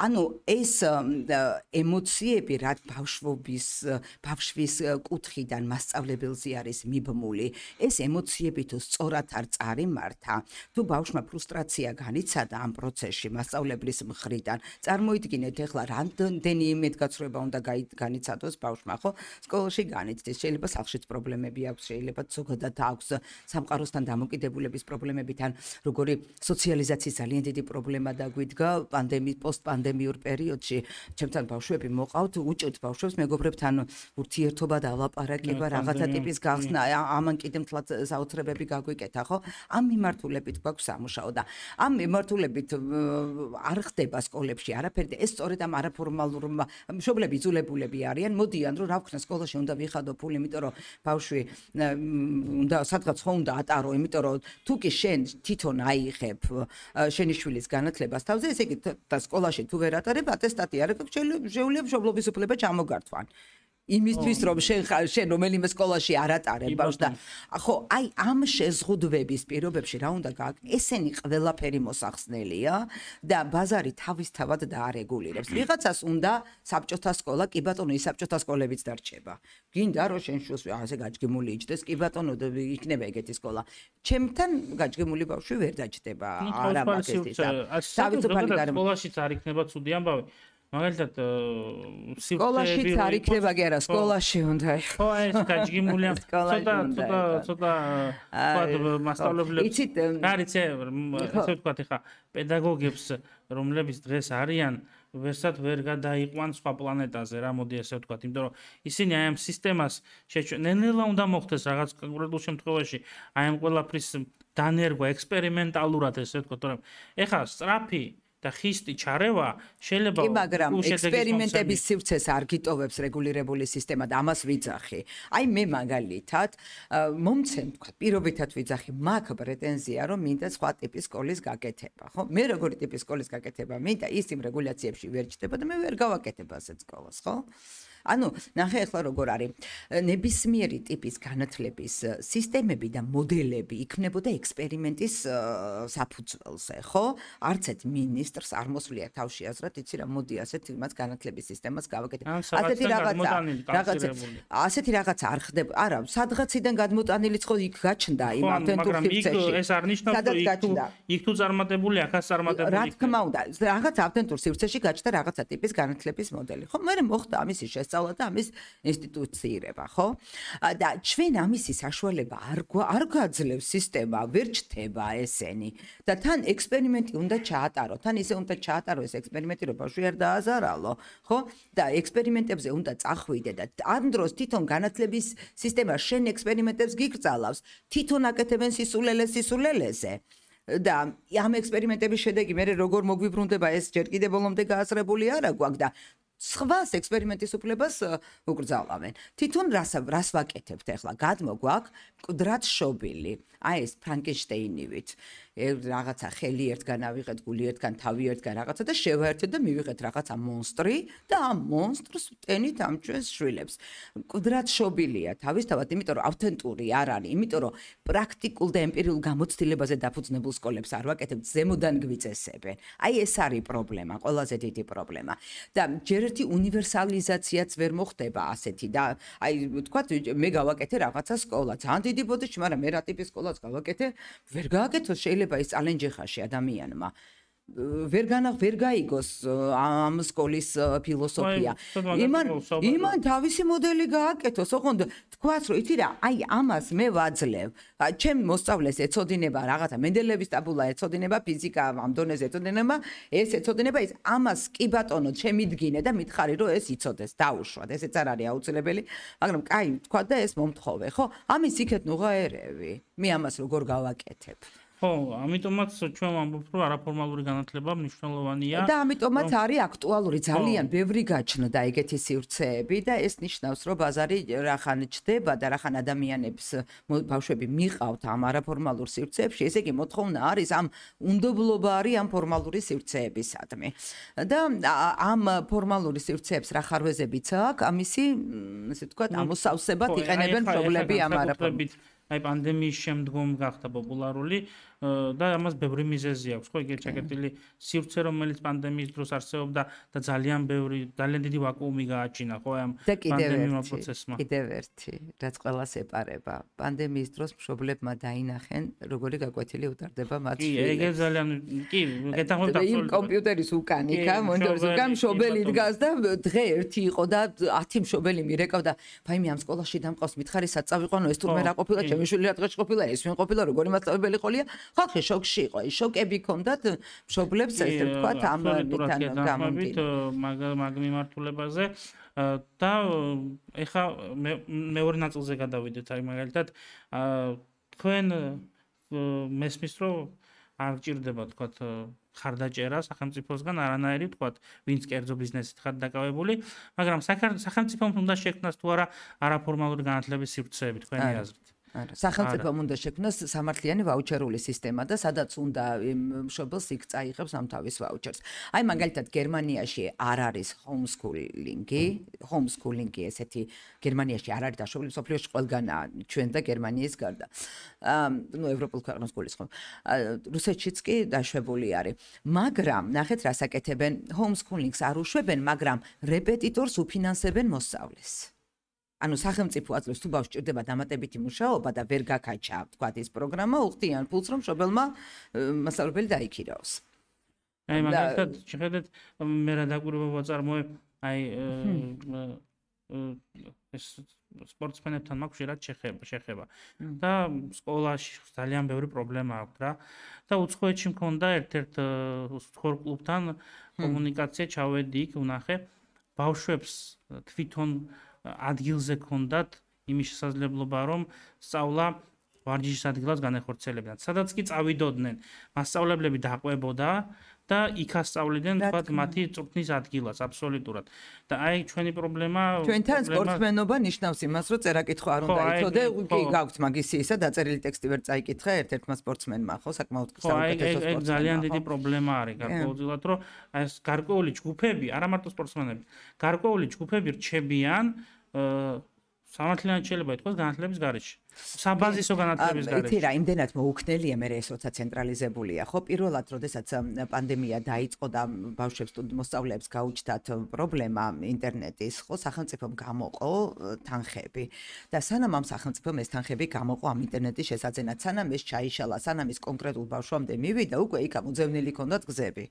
ანუ ეს ემოციები რაც ბავშვის კუთხიდან მასწავლებელზე არის მიბმული ეს ემოციები თუ სწორად არ წარიმართა თუ ბავშვმა ფრუსტრაცია განიცადა ამ პროცესში მასწავლებლის მხრიდან წარმოიდგინეთ ეხლა რამდენი იმედგაცრუება უნდა განიცადოს ბავშვმა ხო სკოლაში განიცდის შეიძლება სახლშიც პრობლემები აქვს შეიძლება ზოგადად აქვს სამყაროსთან დამოკიდებულების პრობლემები თან როგორი სოციალიზაციის ძალიან დიდი პრობლემა დაგვიდგა პოსტპანდემიურ პერიოდში ჩემთან ბავშვები მოყავთ უჭერთ ბავშვებს მეგობრებთან ურთიერთობა და ლაპარაკება რაღაცა ტიპის გახსნა ამან კიდე მთლად საოცრებები გაგვიკეთა ხო ამ მიმართულებით გვაქვს სამუშაო და ამ მიმართულებით არ ხდება სკოლებში არაფერი ეს სწორედ ამ არაფორმალურ მშობლები იძულებულები არიან მოდიან რომ რა ვქნა სკოლაში უნდა ვიხადო ფული იმიტომ რომ ბავშვი უნდა სადღაც ხო უნდა ატარო იმიტომ რომ თუ კი შენ თვითონ აიღებ შენი შვილის განათლებას თავზე ესე იგი და სკოლაში თუ ვერ ატარებ ატესტატი არ აქვს შეუძლია მშობლობის უფლება ჩამოგართვან იმისთვის რომ შენ რომელიმე სკოლაში არ ატარებ ბავშვს და ხო აი ამ შეზღუდვების პირობებში რა უნდა გააკეთო ესენი ყველაფერი მოსახსნელია და ბაზარი თავისთავად დაარეგულირებს ვიღაცას უნდა საბჭოთა სკოლა კი ბატონო ის საბჭოთა სკოლებიც დარჩება გინდა რომ შენ შულს ასე გაჯგიმული იჯდეს კი ბატონო იქნება ეგეთი სკოლა ჩემთან გაჯგიმული ბავშვი ვერ დაჯდება არა მაგისტრის თავისუფალი სკოლაშიც არ იქნება ცუდი ამბავი მაგალითად სკოლაშიც არ იქნება კი არა სკოლაში უნდა ხო ეს გაჯგიმულია ცოტა მასშტაბლებს არის ესე ვთქვათ ხა პედაგოგებს რომლებიც დღეს არიან ვერსად ვერ გადაიყვან სხვა პლანეტაზე რა მოდი ესე ვთქვათ იმიტომ რომ ისინი აი ამ სისტემას ნელ-ნელა უნდა მოხდეს რაღაც კონკრეტულ შემთხვევაში აი ამ ყველაფრის დანერგვა ექსპერიმენტალურად ესე ვთქვათ რომ ეხა სწრაფი და ხისტი ჩარევა შეიძლება კი მაგრამ ექსპერიმენტების სივრცეს არ გიტოვებს რეგულირებული სისტემა და ამას ვიძახი. აი მე მაგალითად მომცემ თქვა პირობითად ვიძახი მაგ პრეტენზია რომ მინდა სხვა ტიპის სკოლის გაკეთება, ხო? მე როგორი ტიპის სკოლის გაკეთება მინდა ის იმ რეგულაციებში ვერ ჩდება და მე ვერ გავაკეთებ ასეთ სკოლას, ხო? ანუ ნახე ახლა როგორ არის ნებისმიერი ტიპის განათლების სისტემები და მოდელები იქნებოდა ექსპერიმენტის საფუძველზე, ხო? არც ერთ მინისტრს არ მოსვლია თავში აზრად, იცი რა, მოდი ასეთ იმას განათლების სისტემას გავაკეთებ. ასეთი რაღაცა არ ხდება. არა, სადღაციდან გადმოტანილიც ხო იქ გაჩნდა იმ ავთენტურ სივრცეში. ეს არ ნიშნავს რომ იქ თუ წარმატებული, აქაც წარმატებული. რა თქმა უნდა, რაღაც ავთენტურ სივრცეში გაჩნდა რაღაცა ტიპის განათლების მოდელი. ხო, მე მოხდა ამისი შესწავლა და ამის ინსტიტუციირება, ხო? და ჩვენ ამისი საშუალება არ გაძლევს სისტემა, ვერ ჩდება ესენი. და თან ექსპერიმენტი უნდა ჩაატარო, თან ისე უნდა ჩაატარო ეს ექსპერიმენტი, რომ ბავშვი არ დააზარალო, ხო? და ექსპერიმენტებზე უნდა წახვიდე და ამ დროს თვითონ განათლების სისტემა შენ ექსპერიმენტებს გიგრძალავს, თვითონ აკეთებენ სისულელეზე. და ამ ექსპერიმენტების შედეგი მე როგორ მოგვიბრუნდება ეს ჯერ კიდევ ბოლომდე გააზრებული არა გვაქვს და სხვას ექსპერიმენტის უფლებას უკრძალავენ. თვითონ რას ვაკეთებთ ახლა? გადმოგვაქვს მკვდრად შობილი. აი ეს ფრანკენშტეინივით. რაღაცა ხელი ერთგან ავიღეთ, გული ერთგან, თავი ერთგან რაღაცა და შევაერთეთ და მივიღეთ რაღაცა მონსტრი და ამ მონსტრს ვტენით ამ ჩვენს შვილებს. მკვდრად შობილია თავისთავად, იმიტომ რომ ავთენტური არ არის, იმიტომ რომ პრაქტიკულ და ემპირიულ გამოცდილებაზე დაფუძნებულ სკოლებს არ ვაკეთებთ, ზემოდან გვიწესებენ. აი ეს არის პრობლემა, ყველაზე დიდი პრობლემა. და ჯერ ერთი უნივერსალიზაციაც ვერ მოხდება ასეთი და აი ვთქვათ მე გავაკეთე რაღაცა სკოლა, ძალიან დიდი ბოდიში, მაგრამ მე რა ტიპის სკოლას გავაკეთე, ვერ გააკეთო შეიძლება ის წალენჯიხაში ადამიანმა ვერ გაიგოს ამ სკოლის ფილოსოფია. იმან თავისი მოდელი გააკეთოს, ოღონდ თქვას რომ იცი რა, აი ამას მე ვაძლევ. ჩემ მოსწავლეს ეცოდინება რაღაცა მენდელევის ტაბულა ეცოდინება, ფიზიკა ამ დონეზე ეცოდინება, ეს ეცოდინება ის ამას კი ბატონო შემიდგინე და მითხარი რომ ეს იცოდეს, დაუშვათ. ესეც არ არის აუცილებელი, მაგრამ კაი თქვა და ეს მომთხოვე, ხო? ამის იქეთ ნუღაერები. მე ამას როგორ გავაკეთებ? ხო, ამიტომაც ჩვენ ვამბობთ, რომ არაფორმალური განათლება მნიშვნელოვანია. და ამიტომაც არის აქტუალური ძალიან ბევრი გაჩნდა ეგეთი სივრცეები და ეს ნიშნავს, რომ ბაზარი რახან ჩდება და რახან ადამიანებს ბავშვები მიყავთ ამ არაფორმალურ სივრცეებში, ესე იგი მოთხოვნა არის ამ უნდობლობა არის ამ ფორმალური სივრცეებისადმი. და ამ ფორმალური სივრცეებს რა ხარვეზებიც აქვს, ამისი, ესე ვთქვათ, ამოსავსებად იყენებენ მშობლები ამ არაფორმალურ. აი პანდემიის შემდგომ გახდა პოპულარული და ამას ბევრი მიზეზი აქვს, ხო, ეგეთ ჩაკეტილი სივრცე, რომელიც პანდემიის დროს არსებობდა და ძალიან დიდი ვაკუუმი გააჩინა, ხო, ამ პანდემიურ პროცესმა. კიდევ ერთი, რაც ყველას ეპარება. პანდემიის დროს მშობლებმა დაინახენ, როგორი გაკვეთილი უტარდება მათ შვილებს. კი, ეგ ძალიან, კი, გეთანხმებით აბსოლუტურად. კომპიუტერის უკანიკა, მონიტორის უკან მშობელი დგას და დღე ერთი იყო და 10 მშობელი მირეკავდა, ფაიმე ამ სკოლაში დამყავს, მითხარი სად წავიყვანო, ეს თურმე რა ყოფილა, ჩემი შვილი რა დღეში ყოფილა, ეს ვინ ყოფილა, როგორი მასწავლებელი ყოლია. ხალხი შოკში იყო, შოკები ჰქონდათ მშობლებს, ესე ვთქვათ, ამ მითან გამომდინარე. მაგ მიმართულებაზე და ეხა მეორე ნაწილზე გადავიდეთ, აი მაგალითად, თქვენ მესმის, რომ არ გჭირდება, ვთქვათ, ხარდაჭერა სახელმწიფოსგან არანაირი, ვთქვათ, ვინც კერძო ბიზნესით ხარ დაკავებული, მაგრამ სახელმწიფომ უნდა შექმნას თუ არა არაფორმალური განათლების სივრცეები თქვენი აზრით. არა, სახელმწიფომ უნდა შექმნას სამართლიანი ვაუჩერული სისტემა და სადაც უნდა მშობელს იქ წაიღებს ამ თავის ვაუჩერს. აი მაგალითად გერმანიაში არ არის ჰომსკულინგი, ესეთი გერმანიაში არ არის დაშვებული, სოფლიოში ყველგანაა, ჩვენ და გერმანიის გარდა. ნუ ევროპულ ქვეყნებს გულისხმობ. რუსეთშიც კი დაშვებული არის. მაგრამ ნახეთ რას აკეთებენ, ჰომსკულინგს არ უშვებენ, მაგრამ რეპეტიტორს უფინანსებენ მოსწავლეს. ანუ სახელმწიფო აძლევს თუ ბავშვს ჭირდება დამატებითი მუშაობა და ვერ გაკაჩა, თქვათ ის პროგრამა, უხდიან ფულს, რომ მშობელმა მასწავლებელი დაიქირაოს. აი მაგალითად, შეხედეთ, მე რა დაკვირვება ვაწარმოებ, აი ეს სპორტსმენებთან მაქვს ხშირად შეხება და სკოლაში ძალიან ბევრი პრობლემა აქვს რა და უცხოეთში მქონდა ერთ-ერთ სპორტ-კლუბთან კომუნიკაცია, ჩავედი იქ, ვნახე ბავშვებს თვითონ ადგილზე ქონდათ იმის შესაძლებლობა, რომ სწავლა ვარჯიშის ადგილას განეხორციელებდნენ. სადაც კი წავიდოდნენ, მასწავლებლები დაყვებოდა და იქ ასწავლიდნენ, თქვათ, მათი წვრთნის ადგილას, აბსოლუტურად. და აი ჩვენი პრობლემა ჩვენთან სპორტსმენობა ნიშნავს იმას, რომ წერა-კითხვა არ უნდა იცოდე, კი გაქვთ მაგისი ისა დაწერილი ტექსტი ვერ წაიკითხე ერთ-ერთმა სპორტსმენმა, ხო, საკმაოდ საუკეთესო სპორტსმენმა. აი ძალიან დიდი პრობლემა არის გარკვეულწილად, რომ აი ეს გარკვეული ჯგუფები, არა მარტო სპორტსმენები, გარკვეული ჯგუფები რჩებიან სამართლიანად შეიძლება ითქვას განათლების გარეშე. საბაზისო განათლების გარეშე. იცი რა, იმდენად მოუქნელია მე ეს როცა ცენტრალიზებულია, ხო, პირველად, როდესაც პანდემია დაიწყო და ბავშვებს მოსწავლეებს გაუჩნდათ პრობლემა ინტერნეტის, ხო, სახელმწიფომ გამოყო თანხები. და სანამ ამ სახელმწიფომ ეს თანხები გამოყო ამ ინტერნეტის შესაძენად, სანამ ეს ჩაიშალა, სანამ ის კონკრეტულ ბავშვამდე მივიდა, უკვე იქ ამოძევნილი ჰქონდათ გზები.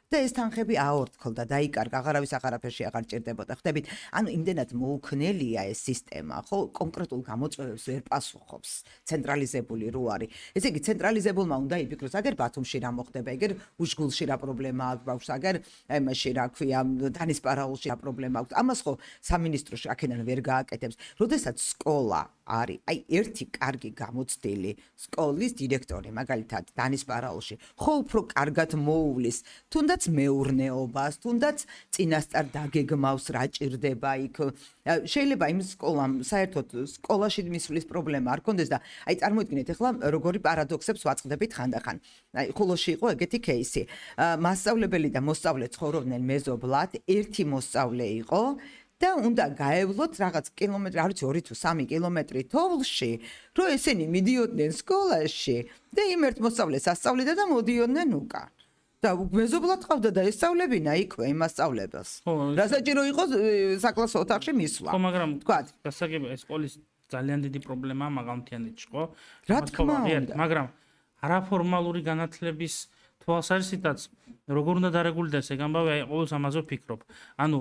და ეს თანხები აორთქლდა, დაიკარგა, აღარავის აღარაფერში აღარ ჭირდებოდა. ხდებით, ანუ იმდენად მოუქნელია ეს სისტემა, ხო, კონკრეტულ გამოწვევებს ვერ პასუხობს, ცენტრალიზებული რო არის. ესე იგი, ცენტრალიზებულმა უნდა იფიქროს, აგერ ბათუმში რა მოხდება, აგერ უშგულში რა პრობლემა აქვს ბავშვს, აგერ აიმაში რა ქვია, დანისპარაულში რა პრობლემა აქვს. ამას ხო სამინისტროში აქედან ვერ გააკეთებს. როდესაც სკოლა არის, აი ერთი კარგი გამოცდილი სკოლის დირექტორი, მაგალითად, დანისპარაულში, ხო უფრო კარგად მოუვლის, თუნდაც მეურნეობას, თუნდაც წინასწარ დაგეგმავს რა ჭირდება იქ. შეიძლება იმ სკოლამ საერთოდ სკოლაში მისვლის პრობლემა არ კონდეს და აი წარმოიდგინეთ ახლა როგორი პარადოქსებს ვაწყდებით ხანდახან. აი ხულოში იყო ეგეთი кейსი. მასწავლებელი და მოსწავლე ცხოვრობდნენ მეზობლად, ერთი მოსწავლე იყო და უნდა გაევლოთ რაღაც კილომეტრი, არ ვიცი 2 თუ 3 კილომეტრი თოვლში, რომ ესენი მიდიოდნენ სკოლაში და იმ ერთ მოსწავლეს ასწავლიდა და მოდიოდნენ უკან. და მეზობლად ყავდა და ესწავლებინა იქვე იმ მასწავლებელს. რა საჭირო იყო საკლასო ოთახში მისვლა. ხო, მაგრამ თქვათ, გასაგებია ეს სკოლის ძალიან დიდი პრობლემაა მაგალითიანეთში, ხო? რა თქმა უნდა. მაგრამ არაფორმალური განათლების თვალსაზრისითაც როგორ უნდა დარეგულირდეს ეგ ამბავი, აი ყოველს ამაზე ვფიქრობ. ანუ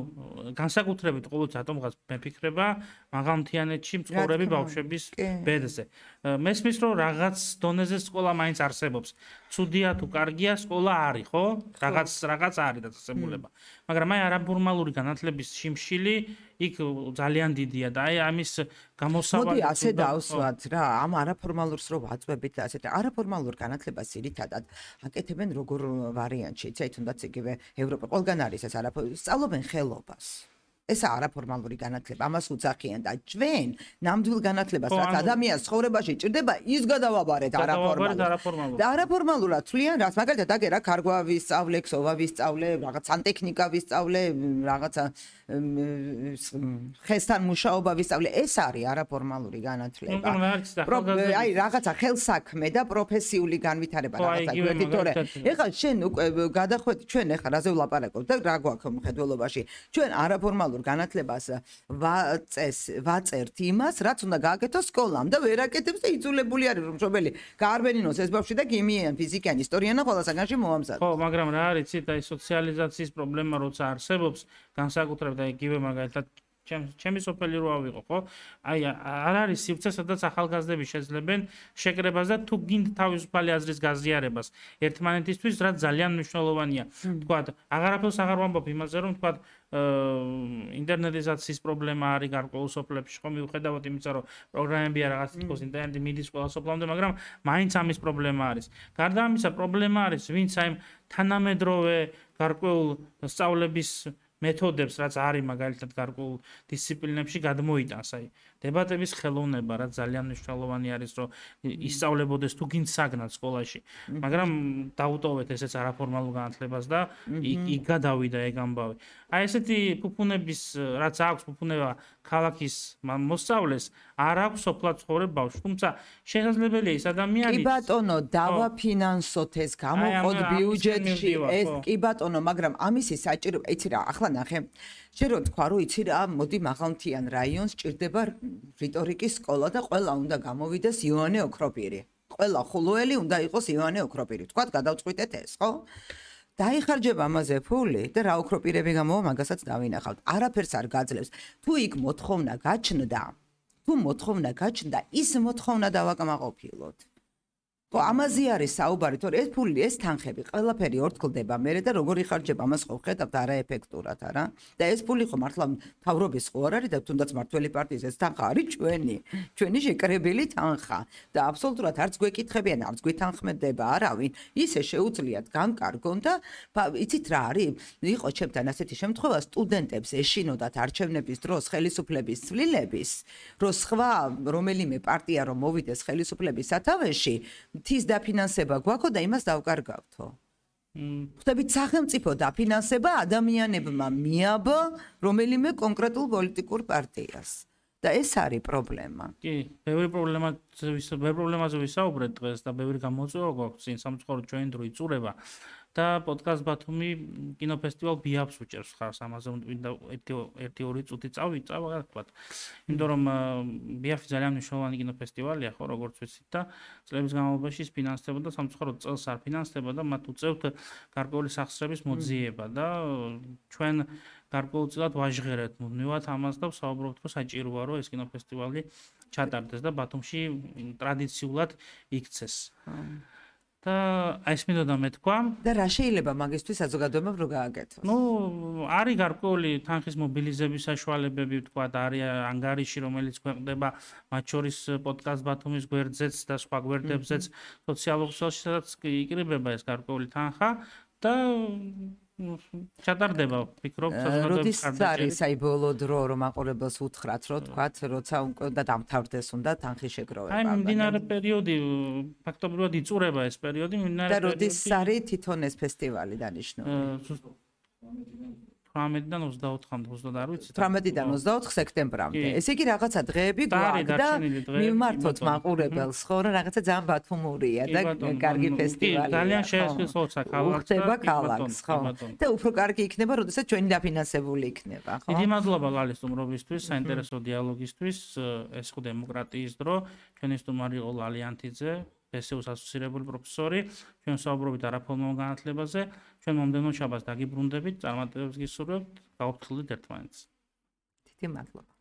განსაკუთრებით ყოველს ატომღაც მეფიქრება მაღალმთიანეთში მცხოვრები ბავშვების ბედზე. მესმის რომ რაღაც დონეზე სკოლა მაინც არსებობს. ცუდია თუ კარგია, სკოლა არის, ხო? რაღაც არის დაწესებულება. მაგრამ აი არაფორმალური განათლების შიმშილი იქ ძალიან დიდია და აი ამის გამოსავალი მოდი ასე დავსვათ რა, ამ არაფორმალურს რო ვაწვევით და ასეთ არაფორმალურ განათლებას ძირითადად აკეთებენ როგორ ვარიანტში, იცით, თუნდაც იგივე ევროპა ყველგან არის ეს სწავლობენ ხელობას. ეს არაფორმალური განათლება, ამას უძახიან და ჩვენ ნამდვილ განათლებას, რაც ადამიანის ცხოვრებაში ჭირდება, ის გადავაბარეთ არაფორმალურად. და არაფორმალურად თვლიან რას, მაგალითად, აგერ რა ქარგვა ვისწავლე, ქსოვა ვისწავლე, რაღაც სანტექნიკა ვისწავლე, რაღაცა ხესთან მუშაობა ვისწავლე, ეს არის არაფორმალური განათლება. აი, რაღაცა ხელსაქმე და პროფესიული განვითარება რაღაცა გვერდით, თორე ეხლა შენ უკვე გადახვედი ჩვენ ეხლა რაზე ვლაპარაკობ და რა გვაქვს მხედველობაში. ჩვენ არაფორმალურ განათლებას ვაწერთ იმას, რაც უნდა გააკეთოს სკოლამ და ვერ აკეთებს და იძულებული არის რომ მშობელი გაარბენინოს ეს ბავშვი და ქიმიიან, ფიზიკიან, ისტორიან და ყველა საგანში მოამზადოს. ხო, მაგრამ რა არის, იცით, აი სოციალიზაციის პრობლემა როცა არსებობს, განსაკუთრებით აი იგივე მაგალითად ჩემი სოფელი რო ავიღო, ხო? აი არ არის სივრცე, სადაც ახალგაზრდები შეძლებენ შეკრებას და თუ გინდ თავისუფალი აზრის გაზიარებას ერთმანეთისთვის, რაც ძალიან მნიშვნელოვანია. თქვათ, აღარაფერს აღარ ვამბობ იმაზე, რომ თქვათ ინტერნეტიზაციის პრობლემა არის გარკვეულ სოფლებში, ხო, მიუხედავად იმისა, რომ პროგრამებია რაღაც თქოს ინტერნეტი მიდის ყველა სოფლამდე, მაგრამ მაინც ამის პრობლემა არის. გარდა ამისა, პრობლემა არის, ვინც აი თანამედროვე გარკვეულ სწავლების მეთოდებს, რაც არის მაგალითად გარკვეულ დისციპლინებში გადმოიტანს, აი დებატების ხელოვნება, რაც ძალიან მნიშვნელოვანი არის, რომ ისწავლებოდეს თუ გინდ საგნად სკოლაში, მაგრამ დაუტოვეთ ესეც არაფორმალურ განათლებას და იქ გადავიდა ეგ ამბავი. აი ესეთი ფუფუნების, რაც აქვს ფუფუნება ქალაქის მოსწავლეს, არ აქვს სოფლად ცხოვრებ ბავშვს, თუმცა შესაძლებელია ის ადამიანი კი ბატონო, დავაფინანსოთ ეს, გამოვყოთ ბიუჯეტში ეს, კი ბატონო, მაგრამ ამისი საჭირო, იცი რა, ახლა ნახე, შენ რო თქვა, რომ იცი რა, მოდი მაღალმთიან რაიონს ჭირდება რიტორიკის სკოლა და ყველა უნდა გამოვიდეს იოანე ოქროპირი. ყველა ხულოელი უნდა იყოს იოანე ოქროპირი. თქვათ, გადავწყვიტეთ ეს, ხო? დაიხარჯება ამაზე ფული და რა ოქროპირები გამოვა, მაგასაც დავინახავთ. არაფერს არ გაძლევს. თუ იქ მოთხოვნა გაჩნდა, ის მოთხოვნა დავაკმაყოფილოთ. ხო, ამაზე არის საუბარი, თორე ეს ფული, ეს თანხები, ყველაფერი ორთქლდება მერე და როგორ იხარჯება, ამას ხო ხედავთ არაეფექტურად, არა? და ეს ფული ხო მართლა მთავრობის ხო არ არის და თუნდაც მართველი პარტიის ეს თანხა არის ჩვენი შეკრებილი თანხა და აბსოლუტურად არც გვეკითხებიან, არც გვითანხმდება არავინ. ისე შეუძლიათ განკარგონ და იცით რა არის? იყო ჩემთან ასეთი შემთხვევა, სტუდენტებს ეშინოდათ არჩევნების დროს ხელისუფლების ცვლილების, რომ სხვა რომელიმე პარტია რომ მოვიდეს ხელისუფლების სათავეში, თის დაფინანსება გვაქვს და იმას დავკარგავთო. ხვდებით, სახელმწიფო დაფინანსება ადამიანებმა მიაბა რომელიმე კონკრეტულ პოლიტიკურ პარტიას. და ეს არის პრობლემა. კი, ბევრი პრობლემაზე ვისაუბრეთ დღეს და ბევრი გამოწვევა გვაქვს წინ სამწუხაროდ ჩვენი დრო იწურება. და პოდკასტ ბათუმი კინოფესტივალ ბიაფს უჭერს ხარს, ამაზე უნდა 1-2 წუთი წავა, თქვათ. იმიტომ რომ ბიაფი ძალიან მნიშვნელოვანი კინოფესტივალია, ხო, როგორც ვიცით და წლების განმავლობაში ის ფინანსდებოდა, სამწუხაროდ წელს არ ფინანსდება და მათ უწევთ გარკვეული სახსრების მოძიება და ჩვენ გარკვეულწილად ვაჟღერეთ მუდმივად ამას და ვსაუბრობთ, რომ საჭიროა, რომ ეს კინოფესტივალი ჩატარდეს და ბათუმში ტრადიციულად იქცეს. და ეს მინდოდა მეთქვა და რა შეიძლება მაგისთვის საზოგადოებამ რო გააკეთოს? არის გარკვეული თანხის მობილიზების საშუალებები, თქვა, არის ანგარიში, რომელიც ქვეყნდება მათ შორის პოდკასტ ბათუმის გვერდზეც და სხვა გვერდებზეც სოციალურ ქსელში, სადაც იკრიბება ეს გარკვეული თანხა და ჩატარდება, ვფიქრობ, როდის არის აი ბოლო დრო რომ აყურებელს უთხრათ, რომ თქვათ, როცა უკვე და დამთავრდეს უნდა თანხის შეგროვება. აი მიმდინარე პერიოდი, ფაქტობრივად იწურება ეს პერიოდი, და როდის არის თვითონ ეს ფესტივალი დანიშნული? 18-დან 24-მდე, 20 არ ვიცი. 18-დან 24 სექტემბრამდე. ესე იგი რაღაცა დღეები გვაქვს და მიმართოთ მაყურებელს, ხო, რომ რაღაცა ძალიან ბათუმურია და კარგი ფესტივალია. ძალიან შეესწროცა ქალაქს. ხდება ქალაქს, ხო. და უფრო კარგი იქნება, როდესაც ჩვენი დაფინანსებული იქნება, ხო? დიდი მადლობა გალის სტუმრობისთვის, საინტერესო დიალოგისთვის. ეს ხო დემოკრატიის დრო. ჩვენი სტუმარი იყო ლალიანთიძე, PSU-ს ასოცირებული პროფესორი. ჩვენ საუბრობთ არაფორმალურ განათლებაზე. ჩვენ მომდევნო შაბათს დაგიბრუნდებით, წარმატებებს გისურვებთ, გავაფრთხილდით ერთმანეთს. დიდი მადლობა.